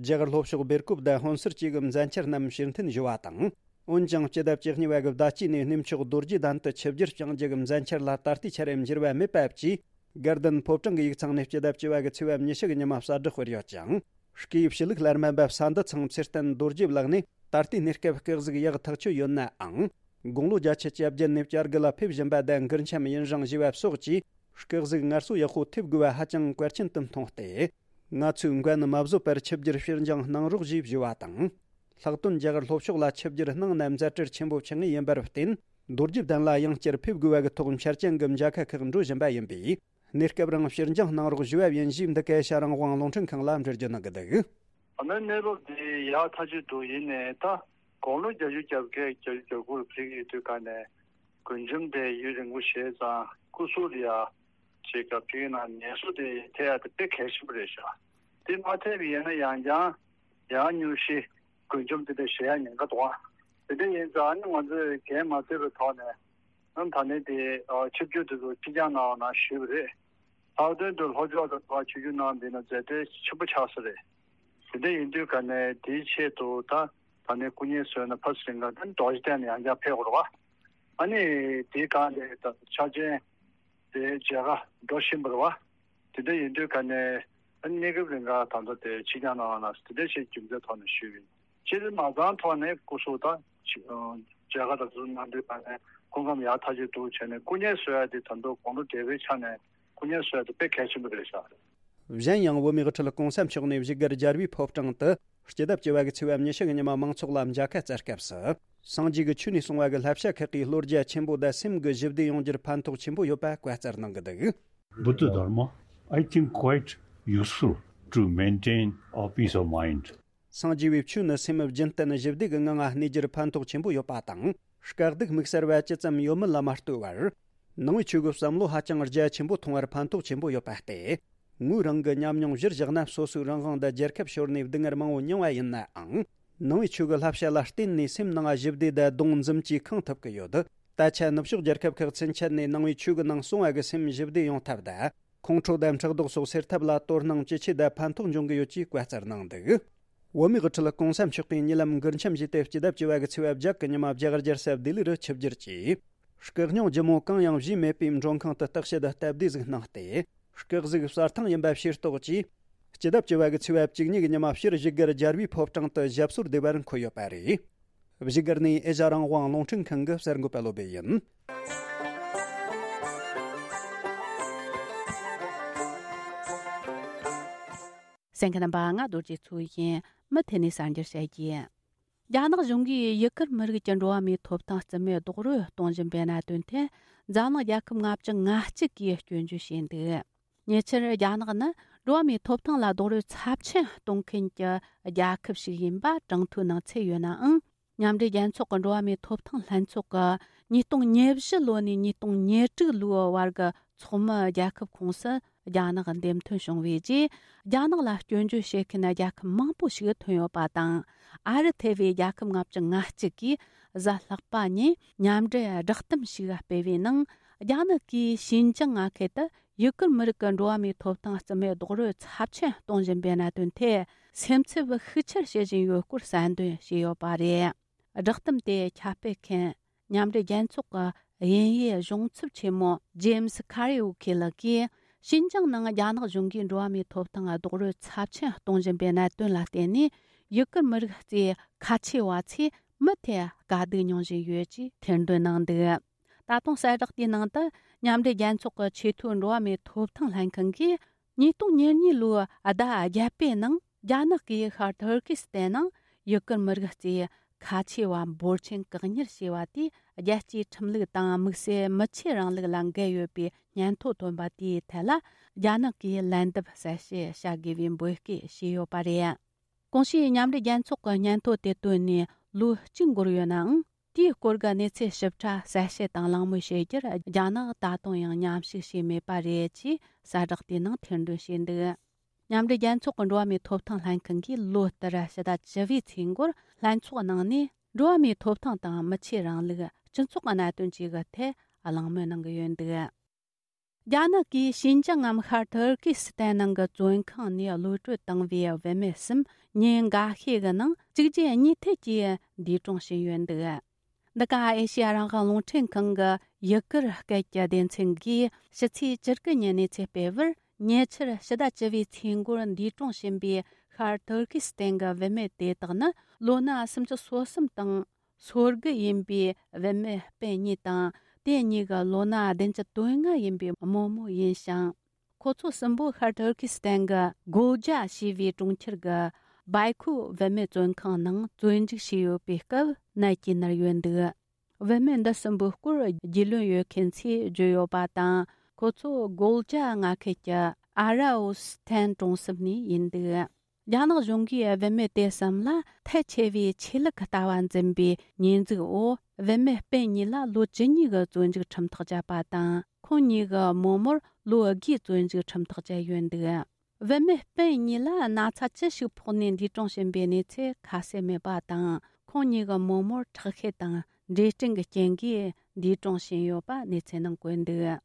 རྒྱ་གར་ལྷོ་ཕྱོགས་སྦེལ་ཀོབ་དང་ཧོན་སུར་བཅས་ཀྱི་མཛད་འཆར་རྣམས་ཕྱིར་འཐེན་ཞུ་བ་དང་། འོན་ཀྱང་སྤྱི་ཟླ་བཅུ་གཉིས་པ་གི་ཟླ་དཀྱིལ་ནས་གནས་མཆོག་རྡོ་རྗེ་གདན་དུ་ཆིབས་བསྒྱུར་བསྐྱང་རྒྱུ་གི་མཛད་འཆར་ལ་ད་ལྟའི་ཆར་འགྱུར་བ་མེད་པ་བཅས། དགའ་ལྡན་ཕོ་བྲང་གི་ཡིག་ཚང་ནས་སྤྱི་ཟླ་བཅུ་པ་གི་ཚེས་པ་ཉི་ཤུ་གི་ཉི་མ་གསལ་བསྒྲགས་སྤེལ་ཡོད་ཅིང་། སྐུའི་ཕྱི་ལུགས་སླར་སྨན་པ་བསམ་འདི་ཚང་ཚེ་བརྟན་རྡོ་རྗེའི་ལག་ནས་ད་ལྟའི་གནས་སྐབས་སྐུ་གཟུགས་ཡག་ཐག་ཆོད་ཡོད་ནའང་། དགུང་ལོ་བརྒྱད་ཅུ་གྱ་བརྒྱད་ནས་བསྐྱར་དགུ་ལ་ཕེབས་བཞིན་པ་དང་མགུར་འཆམ་ཡུན་རིང་བཞེས་པ་སོགས་ཀྱིས་སྐུ་གཟུགས་སྔར་སྲོལ་ཡག་པོ་ཐེབས་དགོས་པ་ཧ་ཅང་གལ་ཆེན་དུ་མཐོང་སྟེ། ང་ཚོས་འགན་མ་བཟོད་པར་ཆིབས་བསྒྱུར་ཕྱིར་འགྱངས་གནང་རོགས་ཞེས་ཞུ་བ་དང་། ལྷག་དོན་རྒྱ་གར་ལྷོ་ཕྱོགས་ལ་ཆིབས་བསྒྱུར་གནང་ན་མཛད་འཕྲིན་ཆེན་པོ་ཆགས་ངེས་ཡིན་པར་བརྟེན། རྡོ་རྗེ་གདན་ལ་ཡང་བསྐྱར་ཕེབས་དགོས་པ་གི་ཐོག་འཆར་ཅན་གྱི་མཇལ་ཁ་ཁག་འགྲོ་བཞིན་པ་ཡིན་པས། གནས་སྐབས་རིང་ཕྱིར་འགྱངས་གནང་རོགས་ཞུ་བ་ཡིན་ཞེས་འདི་ག་ཨེ་ཤ་ཡ་རང་དབང་རླུང་འཕྲིན་ཁང་ལ་འགྲེལ་བརྗོད་གནང་གི་འདུག་ཨ་མའི་གནས་བབ་འདི་ཡག་ཐག་ཆོད་འདུག་ཡིན་ནའི་ད་དགུང་ལོ་བརྒྱད་ཅུ་གྱ་བརྒྱད་བརྒྱད་ཅུ་གྱ་དགུ་ལ་ཕེབས་ཀྱི་ཡོད་དུས་ག་ནས་མགུར་འཆམ་དེ་ཡུན་རིང་པོ་བྱས་ཙང་སྐུ་གཟུགས་ལ་ཡ་ཅིག་ག་ཕེབས་ན་ངལ་གསོ་དེ་ཐེབས་ཡ་དེ་དཔེ་གལ་ཆེན་པོ་རེད་ཤག་དེ་མ་ཐེབས་པ་ཡིན་ན་ཡང་ཡང་ཡང་སྙུང་གཞི་མགུར་འཆམ་དེ་འདྲ་བྱེད་ཡ་ཉེན་ཁ་འདུག་ཨ། དེ་འདྲ་ཡིན་ཙང་ཨ་ནི་ང་ཚོས་འགན་མ་བཟོད་པའི་ཐོག་ནས་ཨ་ནི་ད་ནས་དེ་ཆིབས་བསྒྱུར་དེ་ཚོ་ཕྱིར་འགྱངས་གནང་བ་ན་ཞུས་པ་རེད། ལྷག་དོན་དུ་ལྷོ་ཕྱོགས་ལ་ཕར་ཆིབས་བསྒྱུར་གནང་བ་ཡིན་ན་མཛད་འཕྲིན་ཆེན་པོ་ཆགས་ས་རེད། དེ་འདྲ་ཡིན་དུས་ག་ནས་དེའི་ཆེད་དུ་ད་ད་ནས་སྐུ་ངལ་གསོས་ན་ཕར་ཚུར་ལེན་ག་ད་རྡོ་རྗེ་གདན་ནས་ཡང་བསྐྱར་ཕེབས་དགོས་རེད་བ། ཨ་ནི་དེའི་སྒང་ལ་ད་ཆ་ཅན་དེ་མཇལ་ཁ་འགྲོ་བཞིན་པ་རེད་བ། དེ་འདྲ་ཡིན་དུས་ག་ནས་ཨ་ནི་གནས་སྐབས་རིང་ག་ད་ལྟ་དེ་ཕྱི་འགྱངས་གནང་བ་ན་དེ་འདྲ་ཞིག་རྒྱུ་མཚན་ཐོག་ནས་ཞུས་པ་ཡིན། སྤྱིར་མ་རྩ་ཐོག་ནས་སྐུ་གཟུགས་དང་མཇལ་ཁ་དང་ཚོ་གནང་དུས་ག་ནས་སྐུ་ཁམས་ཡག་ཐག་ཆོད་འདུག་བྱས་ནས་སྐུ་ངལ་གསོ་ཡ་དེ་ད་དུང་དགོང་དྲོ་བགྲེས་པོའི་ཆ་ནས་སྐུ་ངལ་གསོ་ཡ་དེ་དཔེ་གལ་ཆེན་པོ་རེད་ཤག། གཞན་ཡང་བོད་མིའི་དབུ་ཁྲིད་གོང་ས་མཆོག་ནས་བཞུགས་སྒར་རྒྱལ་བའི་ཕོ་བྲང་དུ་སྤྱི་ཟླ་བཅུ་བ་གི་ཚེས་པ་ཉི་ཤུ་གི་ཉི་མ་མང་ཚོགས་ལ་མཇལ་ཁ་བསྩལ་སྐབས་སུ། སངས་རྒྱས་ཀྱི་ཆོས་ནས་གསུངས་པ་གི་བསླབ་བྱ་ཁག་གིས་བློ་རྒྱ་ཆེན་པོ་དང་སེམས་ཀྱི་ཞི་བདེ་ཡོང་རྒྱུར་ཕན་ཐོགས་ཆེན་པོ་ཡོད་པ་བཀའ་སྩལ་གནང་གི་འདུག། Buddha Dharma, I think, quite useful to maintain our peace of mind. སངས་རྒྱས་པའི་ཆོས་ནི་སེམས་རྒྱུན་གཏན་ཞི་བདེ་གི་ངང་ང་གནས་རྒྱུར་ཕན་ཐོགས་ཆེན་པོ་ཡོད་པ་དང་། དཀའ་སྡུག་དམིགས་བསལ་བ་ཅི་ཙམ་ཡོད་མེད་ལ་མ་ལྟོས་པར། ནང་པའི་ཆོས་ཀྱི་བསམ་བློ་ཧ་ཅང་རྒྱ་ཆེན་པོ་མཐོང་བར་ཕན་ཐོགས་ཆེན་པོ་ཡོད་པ་སྟེ། ངོས་རང་གི་ཉམས་མྱོང་གཞིར་བཞག་ན་སོ་སོའི་རང་དབང་དང་རྒྱལ་ཁབ་ཤོར་ནས་སྡུག་བསྔལ་མང་བོ་མྱངས་པ་ཡིན་ནའང་། ནང་པའི་ཆོས་ཀྱི་བསླབ་བྱ་ལ་བརྟེན་ནས་སེམས་ནང་ཞི་བདེ་དང་སྡོམ་འཛུམ་གྱིས་ཁེངས་ཐུབ་ཀྱི་ཡོད། ད་ཆ་ནུབ་ཕྱོགས་རྒྱལ་ཁབ་ཁག་ཚུན་ཆད་ནས་ནང་པའི་ཆོས་ཀྱི་ནང་གསུངས་པ་གི་སེམས་ཞི་བདེ་ཡོང་ཐབས་དང་། ཁོང་ཁྲོ་དང་ཕྲག་དོག་སོགས་སེལ་ཐབས་ལ་དོ་སྣང་ཇེ་ཆེ་དང་ཕན་ཐོགས་འབྱུང་གི་ཡོད་ཅེས་བཀའ་སྩལ་གནང་འདུག། བོད་མིའི་དབུ་ཁྲིད་གོང་ས་མཆོག་གིས་ཉེ་ལམ་མགུར་འཆམ་བཞེས་ཏེ་སྤྱི་ཟླ་བཅུ་བ་གི་ཚེས་པ་བརྒྱད་གི་ཉི་མ་རྒྱ་གར་རྒྱལ་ས་ལྡི་ལི་རུ་ཆིབས་བསྒྱུར་གྱིས། སྐུ་སྙུང་ལྗིད་མོ་གང་ཡང་བཞེས་མེད་པའི་མགྲོན་ཁང་དུ་བརྟག་དཔྱད་དང་སྟབས་བདེ་ཟིག་གནང་སྟེ། སྐུ་གཟུགས་གསལ་ཐང་ཡིན་པ་ཕྱིར་རྟོགས་ཀྱིས། སྤྱི་ཟླ་བཅུ་བ་གི་ཚེས་པ་བཅུ་གཉིས་ཀྱི་ཉི་མ་ཕྱིར་བཞུགས་སྒར་རྒྱལ་བའི་ཕོ་བྲང་དུ་ཞབས་སོར་བདེ་བར་འཁོད་ཡོད་པ་རེད། བཞུགས་སྒར་ནས་ཨེ་ཤ་རང་དབང་རླུང་འཕྲིན་ཁང་གི་གསར་འགོད་པ་བློ་བྷེ་ཡིན། གསན་མཁན་རྣམ་པ། ང་རྡོ་རྗེ་མཚོ་ཡིན། མུ་མཐུད་ནས་གསར་འགྱུར་བཤད་རྒྱུ། རྒྱ་ནག་གཞུང་གིས་ཡུ་གུར་མི་རིགས་ཀྱི་འགྲོ་བ་མིའི་ཐོབ་ཐང་རྩིས་མེད་རྡོག་རོལ་གཏོང་བཞིན་པའི་གནད་དོན་ཐད། འཛམ་གླིང་རྒྱལ་ཁབ་ལྔ་བཅུ་ང་གཅིག་གིས་སྐྱོན་བརྗོད་བྱས་འདུག། ཉེ་ཆར་རྒྱ་ནག་ནི་འགྲོ་བ་མིའི་ཐོབ་ཐང་ལ་རྡོག་རོལ་ཚབས་ཆེན་གཏོང་མཁན་གྱི་རྒྱལ་ཁབ་ཞིག་ཡིན་པ་གྲངས་ཐོའི་ནང་ཚུད་ཡོད་ནའང་། མཉམ་འབྲེལ་རྒྱལ་ཚོགས་ཀྱི་འགྲོ་བ་མིའི་ཐོབ་ཐང་ལྷན་ཚོགས་ཀྱི་ཉིས་སྟོང་ཉེར་བཞི་ལོ་ནས་ཉིས་སྟོང་ཉེར་དྲུག་ལོའི་བར་གྱི་ཚོགས་མི་རྒྱལ་ཁབ་ཁོངས་སུ་རྒྱ་ནག་འདེམས་ཐོན་བྱུང་བའི་རྗེས། རྒྱ་ནག་ལ་སྐྱོན་བརྗོད་བྱེད་མཁན་རྒྱལ་ཁབ་མང་པོ་ཞིག་ཐོན་ཡོད་པ་དང་། ཨ་རི་ཐེ་བའི་རྒྱལ་ཁབ་ལྔ་བཅུ་ང་གཅིག་གིས་གཟའ་ལྷག་པ་ཉིན་མཉམ་འབྲེལ་བསྒྲགས་གཏམ་ཞིག་སྤེལ་བའི་ནང་། རྒྱ་ནག་གིས་ཞིན་ཅང་མངའ་ཁུལ་དུ་ཡུ་གུར་མི་རིགས་ཀྱི་འགྲོ་བ་མིའི་ཐོབ་ཐང་རྩིས་མེད་རྡོག་རོལ་ཚབས་ཆེན་གཏོང་བཞིན་པའི་གནད་དོན་ཐད། སེམས་འཚབ་ཤུགས་ཆེར་བྱེད་བཞིན་ཡོད་སྐོར་གསལ་འདོན་བྱས་ཡོད་པ་རེད། བསྒྲགས་གཏམ་དེ་ཁྱབ་སྤེལ་མཁན་མཉམ་འབྲེལ་རྒྱལ་ཚོགས་ཀྱི་དབྱིན་ཡུལ་གཞུང་ཚབ་ཆེན་མོ་ཇེམ་སི་ཁ་རི་ཨུ་ཁེ་ལགས་ཀྱིས། ཞིན་ཅང་ནང་རྒྱ་ནག་གཞུང་གིས་འགྲོ་བ་མིའི་ཐོབ་ཐང་རྡོག་རོལ་ཚབས་ཆེན་གཏོང་བཞིན་པའི་གནད་དོན་ལ་བརྟེན་ནས། ཡུ་གུར་མི་རིགས་ཀྱི་ཁ་ཆེ་བ་ཚོས་མུ་མཐུད་དཀའ་སྡུག་མྱོང་བཞིན་ཡོད་ཅེས་ཐེར་འདོན་གནང་འདུག། ད་དུང་གསལ་བསྒྲགས་དེའི་ནང་དུ། མཉམ་འབྲེལ་རྒྱལ་ཚོགས་ཀྱི་ཆེས་མཐོའི་འགྲོ་བ་མིའི་ཐོབ་ཐང་ལྷན་ཁང་གིས། ཉིས་སྟོང་ཉེར་གཉིས་ལོའི་ཟླ་བརྒྱད་པའི་ནང་། རྒྱ་ནག་གིས་ཤར་ཐུར་ཀི་སི་ཐན་ནང་ཡུ་གུར་མི་རིགས་ཀྱི་ཁ་ཆེ་བ་འབོར་ཆེན་བཀག་ཉར་བྱས་པ་དེས། རྒྱལ་སྤྱིའི་ཁྲིམས་ལུགས་དང་དམིགས་བསལ་མི་ཆོས་རིང་ལུགས་ལ་འགལ་ཡོད་པའི་སྙན་ཐོ་ཐོན་པ་དེའི་ཐད་ལ། རྒྱ་ནག་གིས་ལན་འདེབས་གསལ་བཤད་བྱ་དགོས་པའི་འབོད་སྐུལ་བྱས་ཡོད་པ་རེད། གོང་ཞུས་མཉམ་འབྲེལ་རྒྱལ་ཚོགས་ཀྱི་སྙན་ཐོ་དེ་བཏོན་ནས་ལོ་གཅིག་འགོར་ཡོད་ནའང་། དེའི་སྐོར་གྱི་གནས་ཚུལ་ཞིབ་ཕྲ་གསལ་བཤད་དང་གླེང་མོལ་བྱེད་རྒྱུར། རྒྱ་ནག་ད་དུང་ཡང་མཉམ་ཞུགས་བྱས་མེད་པ་རེད་ཅེས་གསལ་བསྒྲགས་དེའི་ནང་ཐེར་འདོན་བྱས་འདུག། མཉམ་འབྲེལ་རྒྱལ་ཚོགས་ཀྱི་འགྲོ་བ་མིའི་ཐོབ་ཐང་ལྷན་ཁང་གིས་ལོ་ལྟར་ཕྱི་ཟླ་བཅུ་བའི་ཚེས་འགོར་ལྷན་ཚོགས་ནང་ནས། འགྲོ་བ་མིའི་ཐོབ་ཐང་དང་མི་ཆོས་རིང་ལུགས། སྤྱི་ཚོགས་ཀྱི་གནད་དོན་བཅས་ཀྱི་ཐད་གླེང་མོལ་གནང་གི་ཡོད་འདུག། རྒྱ་ནག་གིས་ཞིན་ཅང་ངམ་ཤར་ཐུར་ཀི་སི་ཐན་ནང་གི་བཙོན་ཁང་ནས་གློད་བཀྲོལ་བཏང་བའི་བུད་མེད་གསུམ་ཉིན་འགའ་ཤས་ཀྱི་ནང་གཅིག་རྗེས་གཉིས་མཐུད་ཀྱིས་འདས་གྲོངས་ཕྱིན་ཡོད་འདུག། འདི་ག་ཨེ་ཤི་ཡ་རང་དབང་རླུང་འཕྲིན་ཁང་གི་ཡུ་གུར་སྐད་ཀྱི་སྡེ་ཚན་གིས་ཕྱི་ཚེས་བཅུ་དགུ་ཉིན་གནས་ཚུལ་སྤེལ་བར། ཉེ་ཆར་ཕྱི་ཟླ་བཅུ་བའི་ཚེས་འགོར་འདས་གྲོངས་ཕྱིན་པའི་ཤར་ཐུར་ཀི་སི་ཐན་གྱི་བུད་མེད་དེ་དག་ནི་ལོ་ན་སུམ་ཅུ་སོ་གསུམ་དང་། སོ་དགུ་ཡིན་པའི་བུད་མེད་སྤུན་གཉིས་དང་། དེ་གཉིས་ཀྱི་ལོ་ན་བདུན་ཅུ་དོན་ལྔ་ཡིན་པའི་རྨོ་མོ་ཡིན་ཞིང་། ཁོ་ཚོ་གསུམ་པོ་ཤར་ཐུར་ཀི་སི་ཐན་གྱི་གོལ་ཇ་ཞེས་པའི་གྲོང་ཁྱེར་གྱི་བའི་ཁུ་བུད་མེད་བཙོན་ཁང་ནང་བཙོན་འཇུག་བྱས་ཡོད་པའི་སྐབས་ནད་ཀྱིས་མནར་ཡོད་འདུག། བུད་མེད་འདི་གསུམ་པོའི་སྐོར་རྒྱུས་ལོན་ཡོད་མཁན་ཚོས་བརྗོད་ཡོད་པ་དང་། ཁོ་ཚོ་གོལ་ཇ་མངའ་ཁུལ་གྱི་ཨ་ར་ཨོ་སི་ཐན་གྲོང་གསེབ་ནས་ཡིན་འདུག། རྒྱ་ནག་གཞུང་གིས་བུད་མེད་དེ་གསུམ་ལ་ཐལ་ཆེ་བའི་ཆོས་ལུགས་ལྟ་བ་འཛིན་པའི་ཉེས་འཛུགས་འོག། བུད་མེད་སྤུན་གཉིས་ལ་ལོ་བཅུ་གཉིས་ཀྱི་བཙོན་འཇུག་ཁྲིམས་ཐག་བཅད་པ་དང་། ཁོང་གཉིས་ཀྱི་རྨོ་མོར་ལོ་དགུའི་བཙོན་འཇུག་ཁྲིམས་ཐག་བཅད་ཡོད་འདུག། བུད་མེད་སྤུན་གཉིས་ལ་ན་ཚ་ཅི་ཞིག་ཕོག་ནས་འདས་གྲོངས་ཕྱིན་པའི་གནས་ཚུལ་ཁ་གསལ་མེད་པ་དང་། ཁོང་གཉིས་ཀྱི་རྨོ་མོར་ཁྲག་ཤེད་དང་འབྲས་སྐྲན་གྱི་རྐྱེན་གྱིས་འདས་གྲོངས་ཕྱིན་ཡོད་པ་གནས་ཚུལ་ནང་བཀོད་འདུག།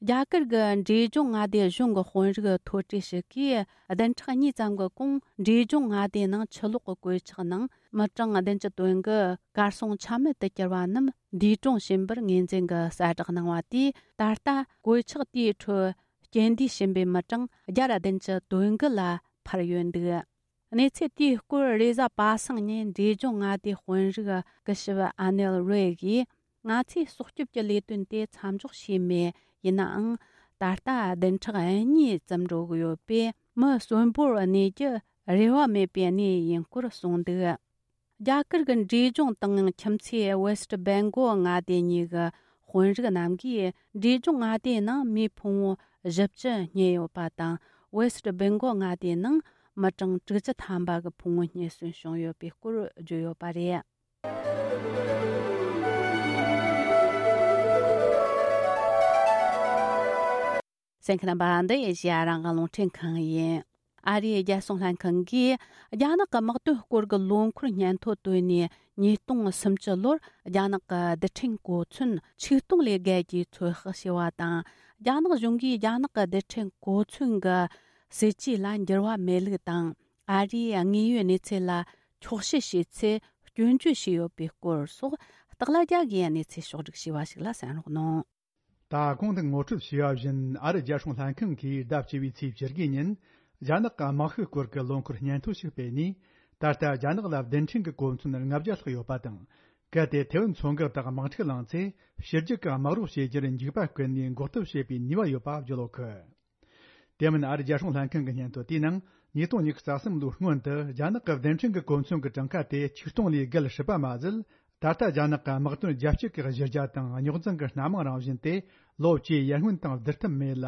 རྒྱ་གར་གྱི་འབྲས་ལྗོངས་མངའ་སྡེ་གཞུང་གི་དཔོན་རིགས་མཐོ་གྲས་ཤིག་གིས་བདུན་ཕྲག་གཉིས་ཙམ་གྱི་གོང་འབྲས་ལྗོངས་མངའ་སྡེའི་ནང་ཆུ་ལོག་གི་གོད་ཆག་ནང་མི་གྲངས་བདུན་ཅུ་དོན་དགུ་གར་སོང་ཆ་མེད་དུ་གྱུར་བ་རྣམས་འདས་གྲོངས་ཕྱིན་པར་ངོས་འཛིན་གྱི་གསལ་བསྒྲགས་གནང་བ་དེས། ད་ལྟ་གོད་ཆག་དེའི་ཁྲོད་རྐྱེན་འདས་ཕྱིན་པའི་མི་གྲངས་བརྒྱ་དང་བདུན་ཅུ་དོན་དགུ་ལ་འཕར་ཡོད་འདུག། གནས་ཚུལ་དེའི་སྐོར་རེས་གཟའ་པ་སངས་ཉིན་འབྲས་ལྗོངས་མངའ་སྡེའི་དཔོན་རིགས་སྐུ་ཞབས་ཨ་ནེལ་རེ་གིས། ང་ཚོས་སྲོག་སྐྱོབ་ཀྱི་ལས་དོན་དེ་མཚམས་འཇོག་བྱས་མེད། ཡིན་ནའང་། ད་ལྟ་བདུན་ཕྲག་གཉིས་ཙམ་འགྲོ་གི་ཡོད་པས། མི་གསོན་པོར་གནས་རྒྱུ་རེ་བ་མེད་པའི་གནས་ཡིན་སྐོར་གསུངས་འདུག། རྒྱ་གར་གྱི་འབྲས་ལྗོངས་དང་ཁྱིམ་མཚེས་ཝེ་སྟ་བེང་གོལ་མངའ་སྡེ་གཉིས་ཀྱི་དཔོན་རིགས་རྣམས་ཀྱིས། འབྲས་ལྗོངས་མངའ་སྡེའི་ནང་མིའི་ཕུང་བོ་བཞི་བཅུ་རྙེད་ཡོད་པ་དང་། ཝེ་སྟ་བེང་གོལ་མངའ་སྡེའི་ནང་མི་གྲངས་དྲུག་ཅུ་ཐམ་པ་གི་ཕུང་བོ་རྙེད་སོན་བྱུང་ཡོད་པའི་སྐོར་བརྗོད་ཡོད་པ་རེད། གསན་མཁན་རྣམ་པ། འདི་ཨེ་ཤེ་ཡ་རང་དབང་རླུང་འཕྲིན་ཁང་ཡིན། ཨ་རིའི་རྒྱལ་སྲུང་ལྷན་ཁང་གིས་རྒྱ་ནག་གི་དམག་དོན་སྐོར་གྱི་ལོ་འཁོར་སྙན་ཐོ་བཏོན་ནས། ཉིས་སྟོང་སུམ་ཅུ་ལོར་རྒྱ་ནག་གི་རྡུལ་ཕྲན་གོ་མཚོན་ཆིག་སྟོང་ལས་བརྒལ་གྱིས་ཚོད་དཔག་བྱས་པ་དང་། རྒྱ་ནག་གཞུང་གིས་རྒྱ་ནག་གི་རྡུལ་ཕྲན་གོ་མཚོན་གྱི་སྲིད་ཇུས་ལ་འགྱུར་བ་མེད་ལུགས་དང་། ཨ་རིའི་དངོས་ཡོད་གནས་ཚུལ་ལ་འཁྱོག་བཤད་བྱས་ཚེ་སྐྱོན་བརྗོད་བྱས་ཡོད་པའི་སྐོར་སོགས། སྟག་ལྷ་རྒྱལ་གྱིས་གནས་ཚུལ་ཕྱོགས་བསྒྲིགས་བྱས་པ་ཞིག་ལ་གསན་རོགས་གནང་། ད་གོང་དུ་ངོ་སྤྲོད་བྱས་པ་བཞིན། ཨ་རི་རྒྱལ་སྲུང་ལྷན་ཁང་གིས་ཟླ་བཅུ་བའི་ཚེས་བཅུ་དགུ་ཉིན། རྒྱ་ནག་གི་དམག་ཤུགས་སྐོར་གྱི་ལོ་འཁོར་སྙན་ཐོ་ཞིག་སྤེལ་ནས། ད་ལྟ་རྒྱ་ནག་ལ་རྡུལ་ཕྲན་གྱི་གོ་མཚོན་ལྔ་བརྒྱ་ལྷག་ཡོད་པ་དང་། གལ་ཏེ་ཐེ་ཝན་མཚོ་འགག་དང་དམག་འཁྲུག་ལངས་ཚེ། ཕྱི་རྒྱལ་གྱི་དམག་རོགས་བྱེད་རྒྱུར་འཇིགས་པ་བསྐུལ་ནས་འགོག་ཐབས་བྱེད་པའི་ནུས་པ་ཡོད་པ་བརྗོད་ཡོད་གི། དེ་མིན། ཨ་རི་རྒྱལ་སྲུང་ལྷན་ཁང་གི་སྙན་ཐོ་དེའི་ནང་། ཉིས་སྟོང་ཉི་ཤུ་རྩ་གསུམ་ལོའི་སྔོན་དུ་རྒྱ་ནག་གི་རྡུལ་ཕྲན་གྱི་གོ་མཚོན་གྱི་གྲངས་ཀ་དེ་ཆིག་སྟོང་ལས་བརྒལ་སྲིད་པ་མ་ཟད། ད་ལྟ་རྒྱ་ནག་གི་དམག་དོན་རྒྱ་སྐྱེད་ཀྱི་གཞི་རྒྱ་དང་རྙོག་འཛིང་གི་སྣ་མང་རང་བཞིན་དེ། ལོ་བཅུའི་ཡར་སྔོན་དང་བསྡུར་ཐབས་མེད་ལ།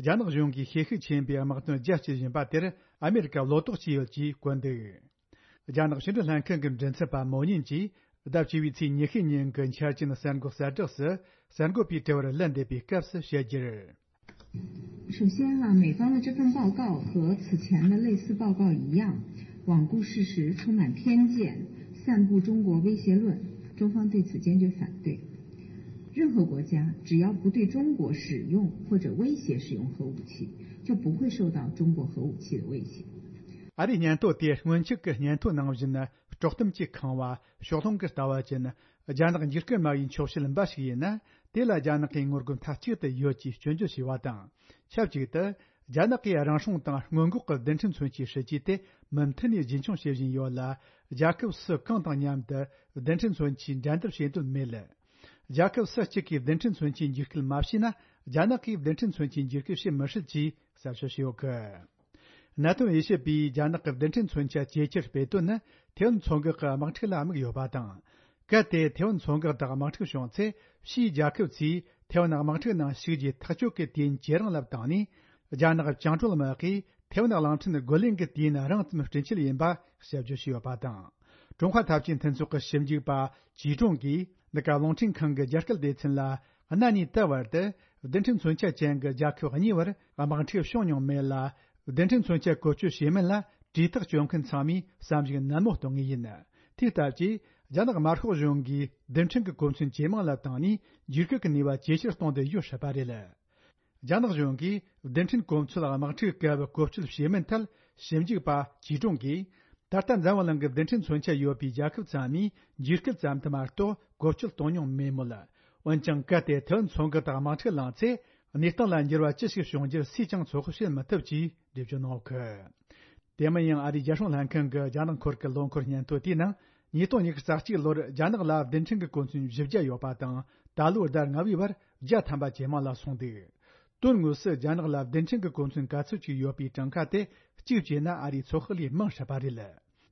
རྒྱ་ནག་གཞུང་གིས་ཤེད་ཤུགས་ཆེན་པོས་དམག་དོན་རྒྱ་སྐྱེད་བཞིན་པ་དེར། ཨ་མེ་རི་ཀ་བློ་དོགས་བྱས་ཡོད་ཅེས་བཀོད་འདུག། རྒྱ་ནག་ཕྱི་འབྲེལ་ལྷན་ཁང་གི་མགྲིན་ཚབ་པ་མོ་ཉིན་གྱིས། ཟླ་བཅུ་བའི་ཚེས་ཉི་ཤུ་ཉིན་གྱི་འཆར་ཅན་གསར་འགོད་གསལ་བསྒྲགས་སུ། གསར་འགོད་པའི་དྲི་བར་ལན་འདེབས་པའི་སྐབས་སུ་བཤད་རྒྱུར། 首先啊，美方的这份报告和此前的类似报告一样，罔顾事实，充满偏见，散布中国威胁论，中方对此坚决反对。任何国家只要不对中国使用或者威胁使用核武器，就不会受到中国核武器的威胁。 ཨ་རིའི་སྙན་ཐོ་དེ་སྔོན་ཆད་ཀྱི་སྙན་ཐོ་ནང་བཞིན་དཀྲོག་གཏམ་གྱིས་ཁེངས་པ། ཕྱོགས་ལྷུང་གི་ལྟ་བ་ཅན། རྒྱ་ནག་འཇིགས་སྐུལ་སྨྲ་བའི་འཁྱོག་བཤད་འབའ་ཞིག་ཡིན་ན། དེ་ལ་རྒྱ་ནག་གིས་ངོ་རྒོལ་མཐའ་གཅིག་ཏུ་ཡོད་ཅེས་སྐྱོན་བརྗོད་བྱས་པ་དང་། ཆབས་ཅིག་ཏུ། རྒྱ་ནག་གིས་རང་སྲུང་དང་སྔོན་འགོག་གི་རྡུལ་ཕྲན་མཚོན་ཆའི་སྲིད་ཇུས་དེ་མུ་མཐུད་ནས་རྒྱུན་འཁྱོངས་བྱེད་བཞིན་ཡོད་ལ། རྒྱལ་ཁབ་སུ་གང་དང་མཉམ་དུ་རྡུལ་ཕྲན་མཚོན་ཆའི་འགྲན་བསྡུར་བྱེད་འདོད་མེད་ལ། རྒྱལ་ཁབ་སུ་གཅིག་གིས་རྡུལ་ཕྲན་མཚོན་ཆའི་འཇིགས་སྐུལ་མ་བྱས་ན། རྒྱ་ནག་གིས་རྡུལ་ཕྲན་མཚོན་ཆའི་འཇིགས་སྐུལ་བྱེད་མི་སྲིད་ཅེས་གསལ་བཤད་བྱས་ཡོད་གི། གནད་དོན་དབྱེ་ཞིབ་པས་རྒྱ་ནག་གི་རྡུལ་ཕྲན་མཚོན་ཆ་ཇེ་ཆེར་སྤེལ་དོན་ནི། ཐེ་ཝན་མཚོ་འགག་གི་དམག་འཁྲུག་ལ་དམིགས་ཡོད་པ་དང་། གལ་ཏེ་ཐེ་ཝན་མཚོ་འགག་དང་དམག་འཁྲུག་བྱུང་ཚེ། ཕྱིའི་རྒྱལ་ཁབ་ཚོས་ཐེ་ཝན་དམག་འཁྲུག་ནང་ཞུགས་རྒྱུའི་ཐག་གཅོད་ཀྱི་དུས་ཡུན་ཇེ་རིང་ལ་བཏང་ནས། རྒྱ་ནག་བཅིངས་འགྲོལ་དམག་གིས་ཐེ་ཝན་གླིང་ཕྲན་རྒོལ་ལན་གྱི་དུས་ཡུན་རིང་ཙམ་སྤྲོད་ཆེད་ཡིན་པ་དཔྱད་བརྗོད་བྱས་ཡོད་པ་དང་། ཀྲུང་ཧྭ་འཐབ་ཇུས་མཐུན་ཚོགས་ཀྱི་ཞིབ་འཇུག་པ་ཅི་ཀྲུང་གིས། འདི་ག་རླུང་འཕྲིན་ཁང་གི་རྒྱ་སྐད་སྡེ་ཚན་ལ། གནའ་ནས་ད་བར་དུ་རྡུལ་ཕྲན་མཚོན་ཆ་ཅན་གྱི་རྒྱལ་ཁབ་གཉིས་བར་དམག་འཁྲུག་བྱུང་མྱོང་མེད་ལ། རྡུལ་ཕྲན་མཚོན་ཆ་བཀོལ་སྤྱོད་བྱེད་མིན་ལ་གྲོས་ཐག་གཅོད་མཁན་ཚང་མས་བསམ་གཞིག་ནན་མོ་གཏོང་ངེས་ཡིན། དེ་ལྟ་བུའི་རྒྱ་ནག་དམར་ཤོག་གཞུང་གིས་རྡུལ་ཕྲན་གྱི་གོ་མཚོན་ཇེ་མང་ལ་བཏང་ནས། འཇིགས་སྐུལ་གྱི་ནུས་པ་ཇེ་ཆེར་གཏོང་འདོད་ཡོད་སྲིད་པ་རེད། རྒྱ་ནག་གཞུང་གིས་རྡུལ་ཕྲན་གོ་མཚོན་དམག་འཁྲུག་སྐབས་བཀོལ་སྤྱོད་བྱེད་མིན་ཐད་ཞིབ་འཇུག་པ་ཅི་ཀྲུང་གིས། ད་ལྟ་འཛམ་བུ་གླིང་གི་རྡུལ་ཕྲན་མཚོན་ཆ་ཡོད་པའི་རྒྱལ་ཁབ་ཚང་མས་འཇིགས་སྐུལ་ཙམ་དུ་མ་གཏོགས་བཀོལ་སྤྱོད་གཏོང་མྱོང་མེད་མོད། འོན་ཀྱང་། གལ་ཏེ་ཐེ་ཝན་མཚོ་འགག་དང་དམག་འཁྲུག་ལངས་ཚེ། གནས་སྟངས་ལ་འགྱུར་བ་ཅི་ཞིག་བྱུང་རྒྱུར་སུས་ཀྱང་ཚོད་དཔག་བྱེད་མི་ཐུབ་ཅེས་འགྲེལ་བརྗོད་གནང་ཡོད་གི། དེ་མིན་ཡང་། ཨ་རིའི་རྒྱལ་སྲུང་ལྷན་ཁང་གི་རྒྱ་ནག་སྐོར་གྱི་ལོ་འཁོར་སྙན་ཐོ་དེའི་ནང་། ཉིས་སྟོང་ཉི་ཤུ་རྩ་གཅིག་ལོར་རྒྱ་ནག་ལ་རྡུལ་ཕྲན་གྱི་གོ་མཚོན་བཞི་བརྒྱ་ཡོད་པ་དང་། ད་ལོའི་ཟླ་ལྔ་བའི་བར་བརྒྱ་ཐམ་པ་ཇེ་མང་ལ་སོང་འདུག། དོན་དངོས་སུ་རྒྱ་ནག་ལ་རྡུལ་ཕྲན་གྱི་གོ་མཚོན་ག་ཚོད་ཅིག་ཡོད་པའི་གྲངས་ཀ་དེ་གཅིག་བྱས་ན། ཨ་རིའི་ཚོད་དཔག་ལས་མང་སྲིད་པ་རེད།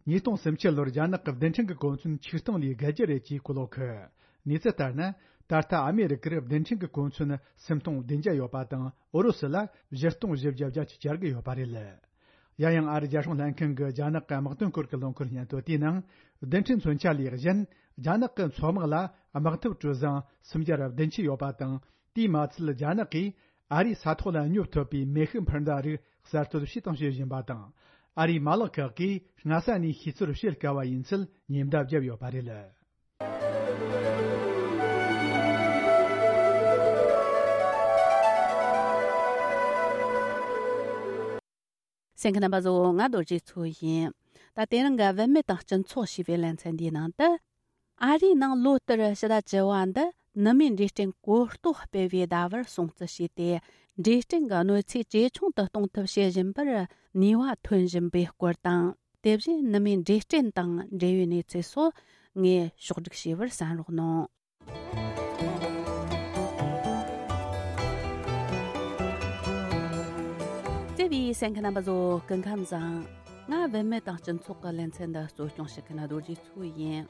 ཉིས་སྟོང་སུམ་ཅུ་ལོར་རྒྱ་ནག་གི་རྡུལ་ཕྲན་གྱི་གོ་མཚོན་ཆིག་སྟོང་ལས་བརྒལ་རྒྱུ་རེད་ཅེས་བཀོད་ཡོད་གི། གནས་ཚུལ་ལྟར་ན། ད་ལྟ་ཨ་མེ་རི་ཀར་རྡུལ་ཕྲན་གྱི་གོ་མཚོན་སུམ་སྟོང་བདུན་བརྒྱ་ཡོད་པ་དང་། ཨུ་རུ་སུ་ལ་བཞི་སྟོང་བཞི་བརྒྱ་བརྒྱད་ཅུ་གྱ་དགུ་ཡོད་པ་རེད། ཡང་ཡང་། ཨ་རིའི་རྒྱལ་སྲུང་ལྷན་ཁང་གི་རྒྱ་ནག་གི་དམག་དོན་སྐོར་གྱི་ལོ་འཁོར་སྙན་ཐོ་དེའི་ནང་། རྡུལ་ཕྲན་མཚོན་ཆ་ལས་གཞན། རྒྱ་ནག་གི་མཚོ་དམག་ལ་དམག་འཐབ་གྲུ་གཟིངས་སུམ་བརྒྱ་བདུན་ཅུ་ཡོད་པ་དང་། དེས་མ་ཚད། རྒྱ་ནག་གིས་ཨ་རིའི་ས་ཐོག་ལ་སྙོབ་ཐུབ་པའི་མེ་ཤུགས་འཕུར་མདའ་རིགས་གསར་གཏོད་བྱས་དང་བྱེད་བཞིན་པ་དང་། ཨ་རིའི་མ་ལག་ཁག་གིས་སྔ་ས་ནས་ཤེས་ཚོད་བྱེད་དཀའ་བ་ཡིན་ཚུལ་ཉེན་བརྡ་བརྒྱབ་ཡོད་པ་རེད། གསན་མཁན་རྣམ་པ་ཚོ། ང་རྡོ་རྗེ་མཚོ་ཡིན། ད་དེ་རིང་གི་བུད་མེད་དང་སྤྱི་ཚོགས་ཞེས་པའི་ལེ་ཚན་འདིའི་ནང་དུ། ཨ་རིའི་ནང་ལོ་ལྟར་ཕྱི་ཟླ་བཅུ་བ་འདི་ནུ་མའི་འབྲས་སྐྲན་གོ་རྟོགས་སྤེལ་བའི་ཟླ་བར་སྲུང་བརྩི་བྱས་ཏེ། འབྲས་སྐྲན་གྱི་གནོད་འཚེ་ཇེ་ཆུང་དུ་གཏོང་ཐབས་བྱེད་བཞིན་པར་ནུས་པ་ཐོན་བཞིན་པའི་སྐོར་དང་། དེ་བཞིན་ནུ་མའི་འབྲས་སྐྲན་དང་འབྲེལ་བའི་གནས་ཚུལ་སོགས་ངས་ཕྱོགས་སྒྲིག་བྱས་པར་གསན་རོགས་གནང་། བརྩེ་བའི་གསན་མཁན་རྣམ་པ་ཚོ། སྐུ་ཁམས་བཟང་། ང་བུད་མེད་དང་སྤྱི་ཚོགས་ཀྱི་ལེ་ཚན་འདི་གཙོ་སྐྱོང་བྱེད་མཁན་རྡོ་རྗེ་མཚོ་ཡིན།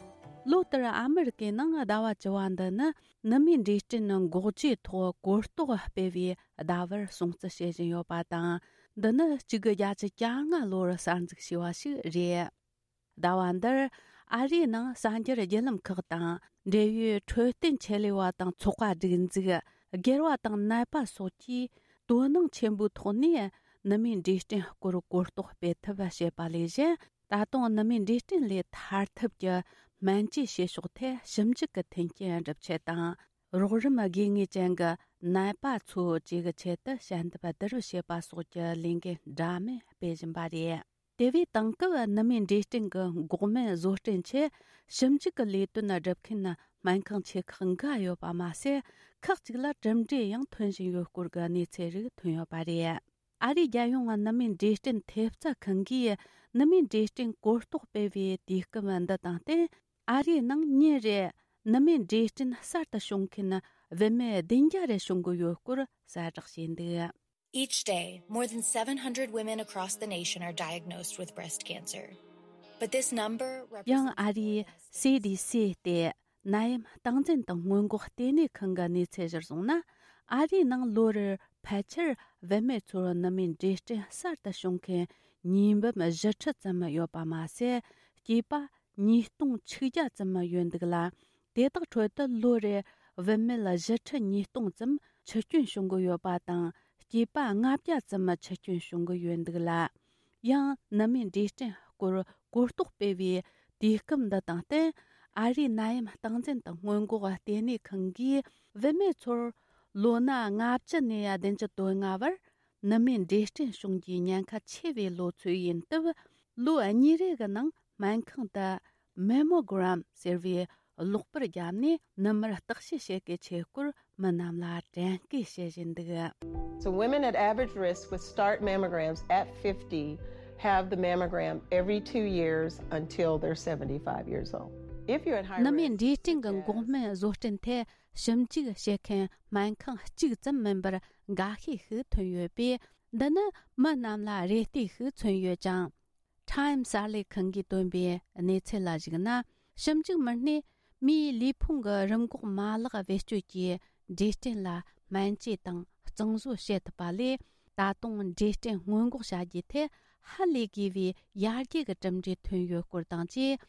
ལོ་ལྟར་ཨ་མི་རི་ཀའི་ནང་ཟླ་བ་བཅུ་བ་འདི་ནི་ནུ་མའི་འབྲས་སྐྲན་འགོག་བཅོས་ཐོག་གོ་རྟོགས་སྤེལ་བའི་ཟླ་བར་སྲུང་བརྩི་བྱེད་བཞིན་ཡོད་པ་དང་། འདི་ནི་གཅིག་དགུ་བརྒྱད་ཅུ་གྱ་ལྔ་ལོར་གསར་འཛུགས་བྱས་པ་ཞིག་རེད། ཟླ་བ་འདིར་ཨ་རིའི་ནང་གསར་འགྱུར་བརྒྱུད་ལམ་ཁག་དང་འབྲེལ་ཡོད་འཕྲོད་བསྟེན་ཆེད་ལས་པ་དང་ཚོགས་པ་སྒྲིག་འཛུགས། སྒེར་བ་དང་ནད་པ་སོགས་ཀྱིས་དོ་སྣང་ཆེན་པོའི་ཐོག་ནས་ནུ་མའི་འབྲས་སྐྲན་སྐོར་གོ་རྟོགས་སྤེལ་ཐབས་བྱེད་པ་ལས་གཞན། ད་དུང་ནུ་མའི་འབྲས་སྐྲན་ལས་ཐར་ཐབས་ཀྱི་སྨན་བཅོས་བྱེད་ཕྱོགས་ཐད་ཞིབ་འཇུག་གི་མཐུན་རྐྱེན་སྒྲུབ་ཆེད་དང་། རོགས་རམ་དགོས་ངེས་ཅན་གྱི་ནད་པ་ཚོ་བཅས་ཀྱི་ཆེད་དུ་ཞལ་འདེབས་བསྡུ་རུབ་བྱེད་པ་སོགས་ཀྱི་ལས་འགན་འདྲ་མིན་སྤེལ་བཞིན་པ་རེད། དེ་བས་དེང་སྐབས་ནུ་མའི་འབྲས་སྐྲན་གྱི་འགོག་སྨན་བཟོ་སྐྲུན་ཆེད་ཞིབ་འཇུག་གི་ལས་དོན་སྒྲུབ་མཁན་སྨན་ཁང་ཆེ་ཁག་འགའ་ཡོད་པ་མ་ཟད། ཁག་ཅིག་ལ་གྲུབ་འབྲས་ཡང་ཐོན་བཞིན་ཡོད་སྐོར་གྱི་གནས་ཚུལ་རིགས་ཐོན་ཡོད་པ་རེད། ཨ་རིའི་རྒྱལ་ཡོངས་ནུ་མའི་འབྲས་སྐྲན་ཐེབས་རྩ་ཁང་གིས་ནུ་མའི་འབྲས་སྐྲན་གོ་རྟོགས་སྤེལ་བའི་དུས་སྐབས་འདི་དང་བསྟུན། ཨ་རིའི་ནང་ཉིན་རེར་ནུ་མའི་འབྲས་སྐྲན་གསར་དུ་བྱུང་མཁན་བུད་མེད་བདུན་བརྒྱ་རེ་བྱུང་གི་ཡོད་སྐོར་གསལ་བསྒྲགས་བྱས་འདུག། Each day, more than seven hundred women across the nation are diagnosed with breast cancer. But this number represents ཡང་ཨ་རིའི་སི་ཌི་སི་སྟེ་ནད་ཡམས་སྟངས་འཛིན་དང་སྔོན་འགོག་ལྟེ་གནས་ཁང་གི་གནས་ཚུལ་གཞིར་བཟུང་ན། ཨ་རིའི་ནང་ལོ་རེར་ཕལ་ཆེར་བུད་མེད་ཚོར་ནུ་མའི་འབྲས་སྐྲན་གསར་དུ་བྱུང་མཁན་ཉིས་འབུམ་བཞི་ཁྲི་ཙམ་ཡོད་པ་མ་ཟད། སྐྱེས་པ་ཉིས་སྟོང་ཆིག་བརྒྱ་ཙམ་ཡོད་འདུག་ལ། དེ་དག་ཁྲོད་དུ་ལོ་རེར་བུད་མེད་བཞི་ཁྲི་ཉིས་སྟོང་ཙམ་འཆི་སྐྱོན་བྱུང་གི་ཡོད་པ་དང་། སྐྱེས་པ་ལྔ་བརྒྱ་ཙམ་འཆི་སྐྱོན་བྱུང་གི་ཡོད་འདུག་ལ། ཡང་ནུ་མའི་འབྲས་སྐྲན་སྐོར་གོ་རྟོགས་སྤེལ་བའི་དུས་སྐབས་འདི་དང་བསྟུན། ཨ་རིའི་ནད་ཡམས་སྟངས་འཛིན་དང་སྔོན་འགོག་ལྟེ་གནས་ཁང་གིས་བུད་མེད་ཚོར་ལོ་ན་ལྔ་བཅུ་ནས་བདུན་ཅུ་དོན་ལྔ་བར་ནུ་མའི་འབྲས་སྐྲན་བྱུང་རྒྱུའི་ཉེན་ཁ་ཆེ་བའི་ལོ་ཚོད་ཡིན་སྟབས། ལོ་གཉིས་རེ་གི་ནང་སྨན་ཁང་དུ་མེ་མོ་གྷ་རམ་ཟེར་བའི་གློག་པར་བརྒྱབ་ནས་ནུ་མར་བརྟག་དཔྱད་བྱེད་དགོས་ཆེད་སྐོར་མི་རྣམས་ལ་དྲན་སྐུལ་བྱེད་བཞིན་འདུག། So women at average risk would start mammograms at fifty, have the mammogram every two years until they're seventy-five years old. If you're at high risk, ནུ་མའི་འབྲས་སྐྲན་གྱི་འགོག་སྨན་བཟོ་སྐྲུན་ཐད་ཞིབ་འཇུག་བྱེད་མཁན་སྨན་ཁང་གཅིག་ཙམ་མིན་པར་འགའ་ཤས་ཤིག་ཐོན་ཡོད་པས། འདི་ནི་མི་རྣམས་ལ་རེ་ལྟོས་ཤིག་མཚོན་ཡོད་ཅིང་། Time གསར་ལས་ཁང་གིས་བཏོན་པའི་གནས་ཚུལ་ལ་གཞིགས་ན། ཞིབ་འཇུག་མི་སྣས་མིའི་ལུས་ཕུང་གི་རིམས་འགོག་མ་ལག་བེད་སྤྱོད་ཀྱིས་འབྲས་སྐྲན་ལ་སྨན་བཅོས་དང་གཙང་བཟོ་བྱེད་ཐུབ་པ་ལས། ད་དུང་འབྲས་སྐྲན་སྔོན་འགོག་བྱ་རྒྱུའི་ཐད་ཧ་ལས་དགོས་པའི་ཡར་རྒྱས་ཀྱི་གྲུབ་འབྲས་ཐོན་ཡོད་སྐོར་དང་བཅས།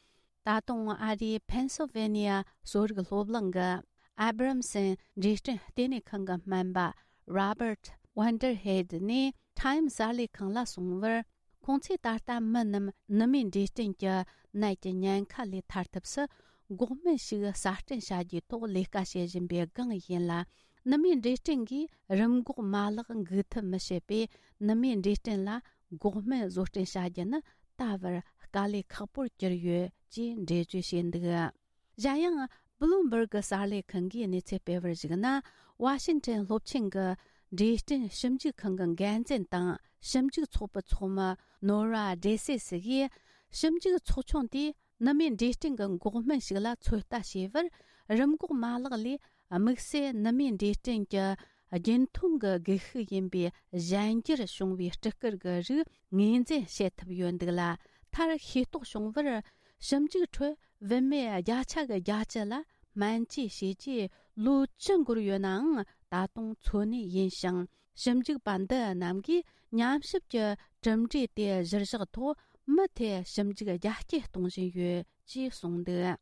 ད་དུང་ཨ་རིའི་Pennsylvania གསོ་རིག་སློབ་གླིང་གི་Abramson འབྲས་སྐྲན་ལྟེ་གནས་ཁང་གི་སྨན་པ་Robert Vanderheide ནས་Time གསར་ལས་ཁང་ལ་གསུངས་པར། ཁོང་ཚོས་ད་ལྟ་མི་རྣམས་ནུ་མའི་འབྲས་སྐྲན་གྱི་ནད་ཀྱི་ཉེན་ཁ་ལས་ཐར་ཐབས་སུ་འགོག་སྨན་ཞིག་གསར་སྐྲུན་བྱ་རྒྱུའི་ཐོག་ལས་ཀ་བྱེད་བཞིན་པའི་སྒང་ཡིན་ལ། ནུ་མའི་འབྲས་སྐྲན་གྱིས་རིམས་འགོག་མ་ལག་འགུག་ཐབས་མི་བྱེད་པས། ནུ་མའི་འབྲས་སྐྲན་ལ་འགོག་སྨན་བཟོ་སྐྲུན་བྱ་རྒྱུ་ནི་ད་བར་དཀའ་ལས་ཁག་པོར་གྱུར་ཡོད་ཅེས་འགྲེལ་བརྗོད་བྱས་འདུག། གཞན་ཡང་། Bloomberg གསར་ལས་ཁང་གིས་གནས་ཚུལ་སྤེལ་བར་གཞིགས་ན། ཝ་ཤིང་ཊོན་སློབ་ཆེན་གྱི་འབྲས་སྐྲན་ཞིབ་འཇུག་ཁང་གི་འགན་འཛིན་དང་ཞིབ་འཇུག་ཚོགས་པའི་ཚོགས་མི་Nora Dessay གིས། ཞིབ་འཇུག་ཚོགས་ཆུང་དེས་ནུ་མའི་འབྲས་སྐྲན་གྱི་འགོག་སྨན་ཞིག་ལ་ཚོད་ལྟ་བྱས་པར། རིམས་འགོག་མ་ལག་ལས་དམིགས་བསལ་ནུ་མའི་འབྲས་སྐྲན་གྱི་རྒྱུན་མཐོང་གི་སྒུལ་ཤུགས་ཡིན་པའི་གཞན་འགྱུར་བྱུང་བའི་སྤྲི་དཀར་གྱི་རིགས་ངོས་འཛིན་བྱེད་ཐུབ་ཡོད་འདུག་ལ། མཐར་ཤེས་རྟོགས་བྱུང་བར། ཞིབ་འཇུག་ཁྲོད་བུད་མེད་བརྒྱ་ཆ་གི་བརྒྱད་ཅུ་ལ་སྨན་བཅོས་བྱས་རྗེས་ལོ་བཅུ་འགོར་ཡོད་ནའང་ད་དུང་འཚོ་གནས་ཡིན་ཞིང་། ཞིབ་འཇུག་པ་འདི་རྣམས་ཀྱིས་ཉམས་ཞིབ་ཀྱི་གྲུབ་འབྲས་དེ་གཞིར་བཞག་ཐོག་མུ་མཐུད་ཞིབ་འཇུག་རྒྱ་སྐྱེད་གཏོང་བཞིན་ཡོད་ཅེས་གསུངས་འདུག།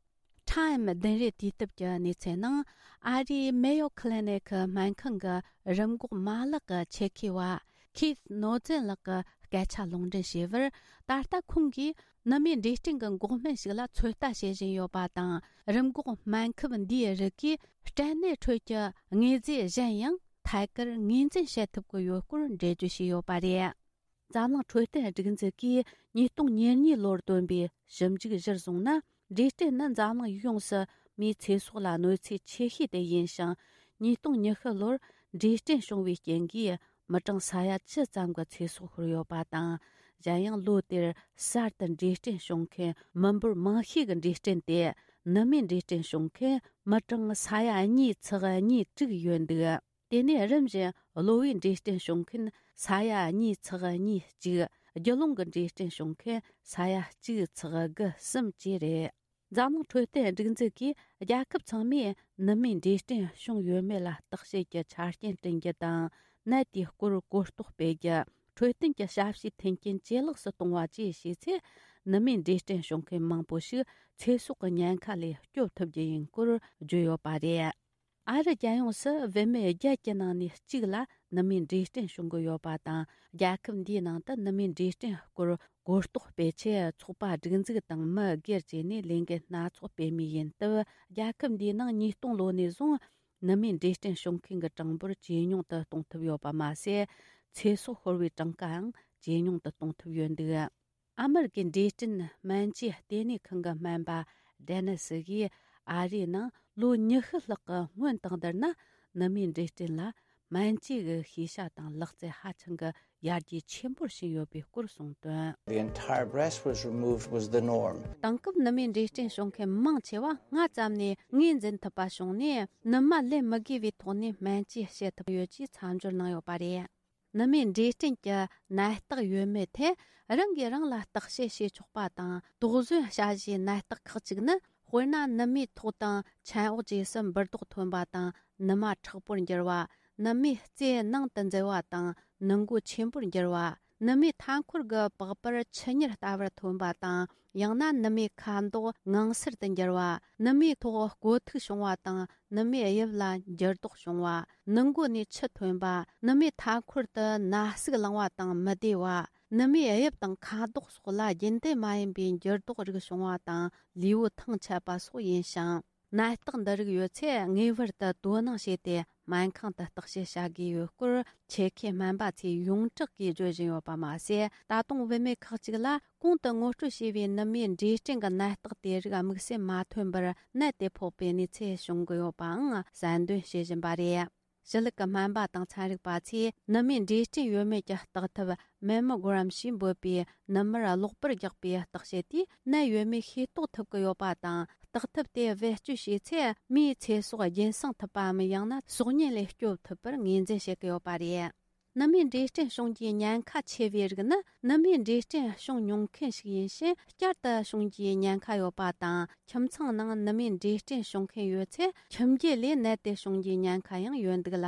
Time བདུན་རེ་དུས་དེབ་ཀྱི་གནས་ཚུལ་ནང་། ཨ་རིའི་Mayo Clinic སྨན་ཁང་གི་རིམས་འགོག་མ་ལག་གི་ཆེད་མཁས་པ་Keith Noesen ལགས་ཀྱི་སྐད་ཆ་ལུང་འདྲེན་བྱས་པར། ད་ལྟ་ཁོང་གིས་ནུ་མའི་འབྲས་སྐྲན་གྱི་འགོག་སྨན་ཞིག་ལ་ཚོད་ལྟ་བྱེད་བཞིན་ཡོད་པ་དང་། རིམས་འགོག་སྨན་ཁབ་འདིའི་རིགས་ཀྱིས་སྐྲན་ནད་ཁྲོད་ཀྱི་དངོས་རྫས་གཞན་ཡང་ཐད་ཀར་ངོས་འཛིན་བྱེད་ཐུབ་ཀྱི་ཡོད་སྐོར་འགྲེལ་བརྗོད་བྱས་ཡོད་པ་རེད། འཛམ་གླིང་འཕྲོད་བསྟེན་སྒྲིག་འཛུགས་ཀྱིས་ཉིས་སྟོང་ཉེར་གཉིས་ལོར་བཏོན་པའི་ཞིབ་འཇུག་གཞིར་བཟུང་ན། འབྲས་སྐྲན་ནི་འཛམ་གླིང་ཡོངས་སུ་མིའི་ཚེ་སྲོག་ལ་གནོད་འཚེ་ཆེ་ཤོས་དེ་ཡིན་ཞིང་། ཉིས་སྟོང་ཉི་ཤུ་ལོར་འབྲས་སྐྲན་བྱུང་བའི་རྐྱེན་གྱིས་མི་གྲངས་ས་ཡ་བཅུ་ཙམ་གྱི་ཚེ་སྲོག་ཤོར་ཡོད་པ་དང་། གཞན་ཡང་ལོ་དེར་གསར་དུ་འབྲས་སྐྲན་བྱུང་མཁན་མི་འབོར་མང་ཤོས་ཀྱི་འབྲས་སྐྲན་དེ་ནུ་མའི་འབྲས་སྐྲན་བྱུང་མཁན་མི་གྲངས་ས་ཡ་གཉིས་ཚེག་གཉིས་དྲུག་ཡོད་འདུག་དེ་ནས་རིམ་བཞིན་གློ་བའི་འབྲས་སྐྲན་བྱུང་མཁན་ས་ཡ་གཉིས་ཚེག་གཉིས་གཅིག་རྒྱུ་ལོང་གི་འབྲས་སྐྲན་བྱུང་མཁན་ས་ཡ་གཅིག་ཚེག་དགུ་གསུམ་བཅས་རེད། འཛམ་གླིང་འཕྲོད་བསྟེན་སྒྲིག་འཛུགས་ཀྱིས་རྒྱལ་ཁབ་ཚང་མས་ནུ་མའི་འབྲས་སྐྲན་བྱུང་ཡོད་མེད་ལ་བརྟག་དཔྱད་ཀྱི་ཆ་རྐྱེན་བསྐྲུན་རྒྱུ་དང་། ནད་དེའི་སྐོར་གོ་རྟོགས་སྤེལ་རྒྱུ། འཕྲོད་བསྟེན་གྱི་ཞབས་ཞུའི་མཐུན་རྐྱེན་ཇེ་ལེགས་སུ་གཏོང་བ་བཅས་བྱས་ཚེ། ནུ་མའི་འབྲས་སྐྲན་བྱུང་མཁན་མང་པོ་ཞིག་ཚེ་སྲོག་གི་ཉེན་ཁ་ལས་སྐྱོབ་ཐུབ་རྒྱུ་ཡིན་སྐོར་བརྗོད་ཡོད་པ་རེད། ཨ་རི་རྒྱལ་ཡོངས་སུ་བུད་མེད་བརྒྱད་ཀྱི་ནང་ནས་གཅིག་ལ་ནུ་མའི་འབྲས་སྐྲན་བྱུང་གི་ཡོད་པ་དང་། རྒྱལ་ཁབ་འདིའི་ནང་དུ་ནུ་མའི་འབྲས་སྐྲན་སྐོར་གོ་རྟོགས་སྤེལ་ཆེད་ཚོགས་པ་སྒྲིག་འཛུགས་དང་མི་སྒེར་བཅས་ནས་ལས་འགུལ་སྣ་ཚོགས་སྤེལ་མུས་ཡིན་སྟབས། རྒྱལ་ཁབ་འདིའི་ནང་ཉིས་སྟོང་ལོ་ནས་བཟུང་ནུ་མའི་འབྲས་སྐྲན་བྱུང་མཁན་གྱི་གྲངས་འབོར་ཇེ་ཉུང་དུ་གཏོང་ཐུབ་ཡོད་པ་མ་ཟད། ཚེ་སྲོག་ཤོར་བའི་གྲངས་ཀའང་ཇེ་ཉུང་དུ་གཏོང་ཐུབ་ཡོད་འདུག་ཨ་མེ་རི་ཀའི་འབྲས་སྐྲན་སྨན་བཅོས་ལྟེ་གནས་ཁང་གི་སྨན་པ་ཌེ་ནི་སི་ཡིས། ཨ་རིའི་ནང་ལོ་ཉི་ཤུ་ལྷག་གི་སྔོན་དང་བསྡུར་ན། ནུ་མའི་འབྲས་སྐྲན་ལ་སྨན་བཅོས་ཀྱི་ཤེས་བྱ་དང་ལག་རྩལ་ཧ་ཅང་གི་ཡར་རྒྱས་ཆེན་པོར་ཕྱིན་ཡོད་པའི་སྐོར་གསུངས་དོན། The entire breast was removed was the norm. དེང་སྐབས་ནུ་མའི་འབྲས་སྐྲན་བྱུང་མཁན་མང་ཆེ་བ་སྔ་ཙམ་ནས་ངོས་འཛིན་ཐུབ་པ་བྱུང་ནས། ནུ་མ་ལེན་མི་དགོས་པའི་ཐོག་ནས་སྨན་བཅོས་བྱེད་ཐུབ་ཡོད་ཅེས་མཚམས་སྦྱོར་གནང་ཡོད་པ་རེད། ནུ་མའི་འབྲས་སྐྲན་གྱི་ནད་རྟགས་ཡོད་མེད་ཐད་རང་གིས་རང་ལ་བརྟག་དཔྱད་བྱེད་ཆོག་པ་དང་། དོགས་ཟོན་བྱ་གཞིའི་ནད་རྟགས་ཁག་ཅིག་ནི། དཔེར་ན། ནུ་མའི་ཐོག་དང་ཕྱན་འོག་བཅས་སུ་འབུར་རྡོག་ཐོན་པ་དང་། ནུ་མ་མཁྲེགས་པོར་འགྱུར་བ། ནུ་མའི་རྩེ་ནང་དུ་འཛུལ་བ་དང་། ནུ་མགོ་ཆེན་པོར་འགྱུར་བ། ནུ་མའི་མཐའ་འཁོར་གྱི་པགས་པར་ཆུ་གཉེར་ལྟ་བུར་ཐོན་པ་དང་། ཡང་ན་ནུ་མའི་ཁ་མདོག་ངང་སེར་དུ་འགྱུར་བ། ནུ་མའི་ཐོག་ཀོ་ཐིག་བྱུང་བ་དང་། ནུ་མའི་དབྱིབས་ལ་འགྱུར་ལྡོག་བྱུང་བ། ནུ་མགོ་ནས་ཆུ་ཐོན་པ། ནུ་མའི་མཐའ་འཁོར་དུ་ན་ཟུག་ལངས་པ་དང་མི་བདེ་བ། ནུ་མའི་དབྱིབས་དང་ཁ་དོག་སོགས་ལ་རྒྱུན་ལྡན་མ་ཡིན་པའི་འགྱུར་ལྡོག་རིགས་བྱུང་བ་དང་། ལུས་པོ་ཐང་ཆད་པ་སོགས་ཡིན་ཞིང་། ནད་རྟགས་འདི་རིགས་ཡོད་ཚེ་ངེས་པར་དུ་དོ་སྣང་བྱས་ཏེ་སྨན་ཁང་དུ་བརྟག་དཔྱད་བྱ་དགོས་ཡོད་སྐོར། ཆེད་མཁས་སྨན་པ་ཚོས་ཡོངས་གྲགས་ཀྱིས་བརྗོད་བཞིན་ཡོད་པ་མ་ཟད། ད་དུང་བུད་མེད་ཁག་ཅིག་ལ་གོང་དུ་ངོ་སྤྲོད་བྱས་པའི་ནུ་མའི་འབྲས་སྐྲན་གྱི་ནད་རྟགས་དེ་རིགས་དམིགས་བསལ་མ་ཐོན་པར་ནད་དེ་ཕོག་པའི་གནས་ཚུལ་བྱུང་གི་ཡོད་པའང་གསལ་འདོན་བྱེད་བཞིན་པ་རེད། ཞི་ལུགས་ཀྱི་སྨན་པ་དང་ཚན་རིག་པ་ཚོས་ནུ་མའི་འབྲས་སྐྲན་ཡོད་མེད་ཀྱི་བརྟག་ཐབས་Mammogram ཞེས་འབོད་པའི་ནུ་མར་གློག་པར་རྒྱག་པའི་བརྟག་དཔྱད་དེས་ནད་ཡོད་མེད་ཤེས་རྟོགས་ཐུབ་ཀྱི་ཡོད་པ་དང་། བརྟག་ཐབས་དེ་བེད་སྤྱོད་བྱས་ཚེ་མིའི་ཚེ་སྲོག་རྒྱུན་སྲུང་ཐུབ་པའམ། ཡང་ན་སྲོག་ཉེན་ལས་སྐྱོབ་ཐུབ་པར་ངོས་འཛིན་བྱེད་ཀྱི་ཡོད་པ་རེད། ནུ་མའི་འབྲས་སྐྲན་བྱུང་རྒྱུའི་ཉེན་ཁ་ཆེ་བའི་རིགས་ནི། ནུ་མའི་འབྲས་སྐྲན་བྱུང་མྱོང་མཁན་ཞིག་ཡིན་ཕྱིན་བསྐྱར་དུ་བྱུང་རྒྱུའི་ཉེན་ཁ་ཡོད་པ་དང་། ཁྱིམ་ཚང་ནང་ནུ་མའི་འབྲས་སྐྲན་བྱུང་མཁན་ཡོད་ཚེ། ཁྱིམ་རྒྱུད་ལས་ནད་དེ་བྱུང་རྒྱུའི་ཉེན་ཁ་ཡང་ཡོད་འདུག་ལ།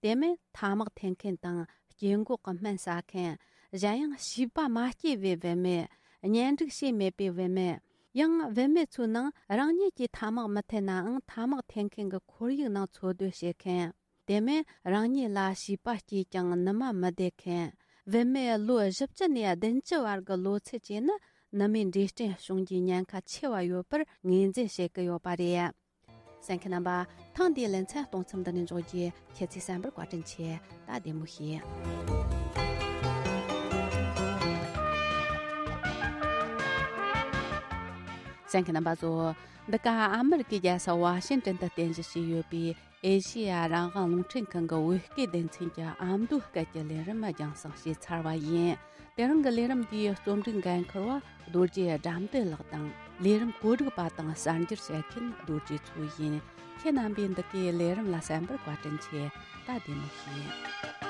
དེ་མིན་ཐ་མག་འཐེན་མཁན་དང་། སྐྱེ་འགོག་གི་སྨན་ཟ་མཁན། གཞན་ཡང་བྱིས་པ་མ་སྐྱེས་པའི་བུད་མེད། གཉེན་སྒྲིག་བྱས་མེད་པའི་བུད་མེད། ཡང་བུད་མེད་ཚོའི་ནང་རང་ཉིད་ཀྱིས་ཐ་མག་མི་འཐེན་ནའང་ཐ་མག་འཐེན་མཁན་གྱི་ཁོར་ཡུག་ནང་འཚོ་སྡོད་བྱེད་མཁན། དེ་མིན་རང་ཉིད་ལ་བྱིས་པ་སྐྱེས་ཀྱང་ནུ་མ་མི་བདེ་མཁན། བུད་མེད་ལོ་བཞི་བཅུ་ནས་བདུན་ཅུ་བར་གྱི་ལོ་ཚད་བཅས་ནི་ནུ་མའི་འབྲས་སྐྲན་བྱུང་རྒྱུའི་ཉེན་ཁ་ཆེ་བ་ཡོད་པར་ངོས་འཛིན་བྱེད་ཀྱི་ཡོད་པ་རེད། གསན་མཁན་རྣམ་པ། ཐེངས་འདིའི་ལེ་ཚན་གཏོང་མཚམས་འདི་ནས་འཇོག་རྒྱུ། ཁྱེད་ཚོས་གསན་པར་བཀའ་དྲིན་ཆེ། ད་བདེ་མོ་བྱོས། གསན་མཁན་རྣམ་པ་ཚོ། འདི་ག་ཨ་མེ་རི་ཀའི་རྒྱལ་ས་ཝ་ཤིང་ཏོན་དུ་རྟེན་གཞི་བྱས་ཡོད་པའི་ཨེ་ཤེ་ཡ་རང་དབང་རླུང་འཕྲིན་ཁང་གི་བོད་སྐད་སྡེ་ཚན་གྱི་ཨ་མདོའི་སྐད་ཀྱི་ལས་རིམ་རྒྱང་སྲིང་བྱས་ཚར་བ་ཡིན། དེ་རིང་གི་ལས་རིམ་འདིའི་རྩོམ་སྒྲིག་འགན་འཁུར་བ་རྡོ་རྗེ་དགྲ་འདུལ་ལགས་དང་། ལས་རིམ་གོ་སྒྲིག་པ་དང་གསར་འགྱུར་བཤད་མཁན་རྡོ་རྗེ་མཚོ་ཡིན། ཁྱེད་རྣམ་པས་འདི་གའི་ལས་རིམ་ལ་གསན་པར་བཀའ་དྲིན་ཆེ། ད་བདེ་མོ་བྱོས།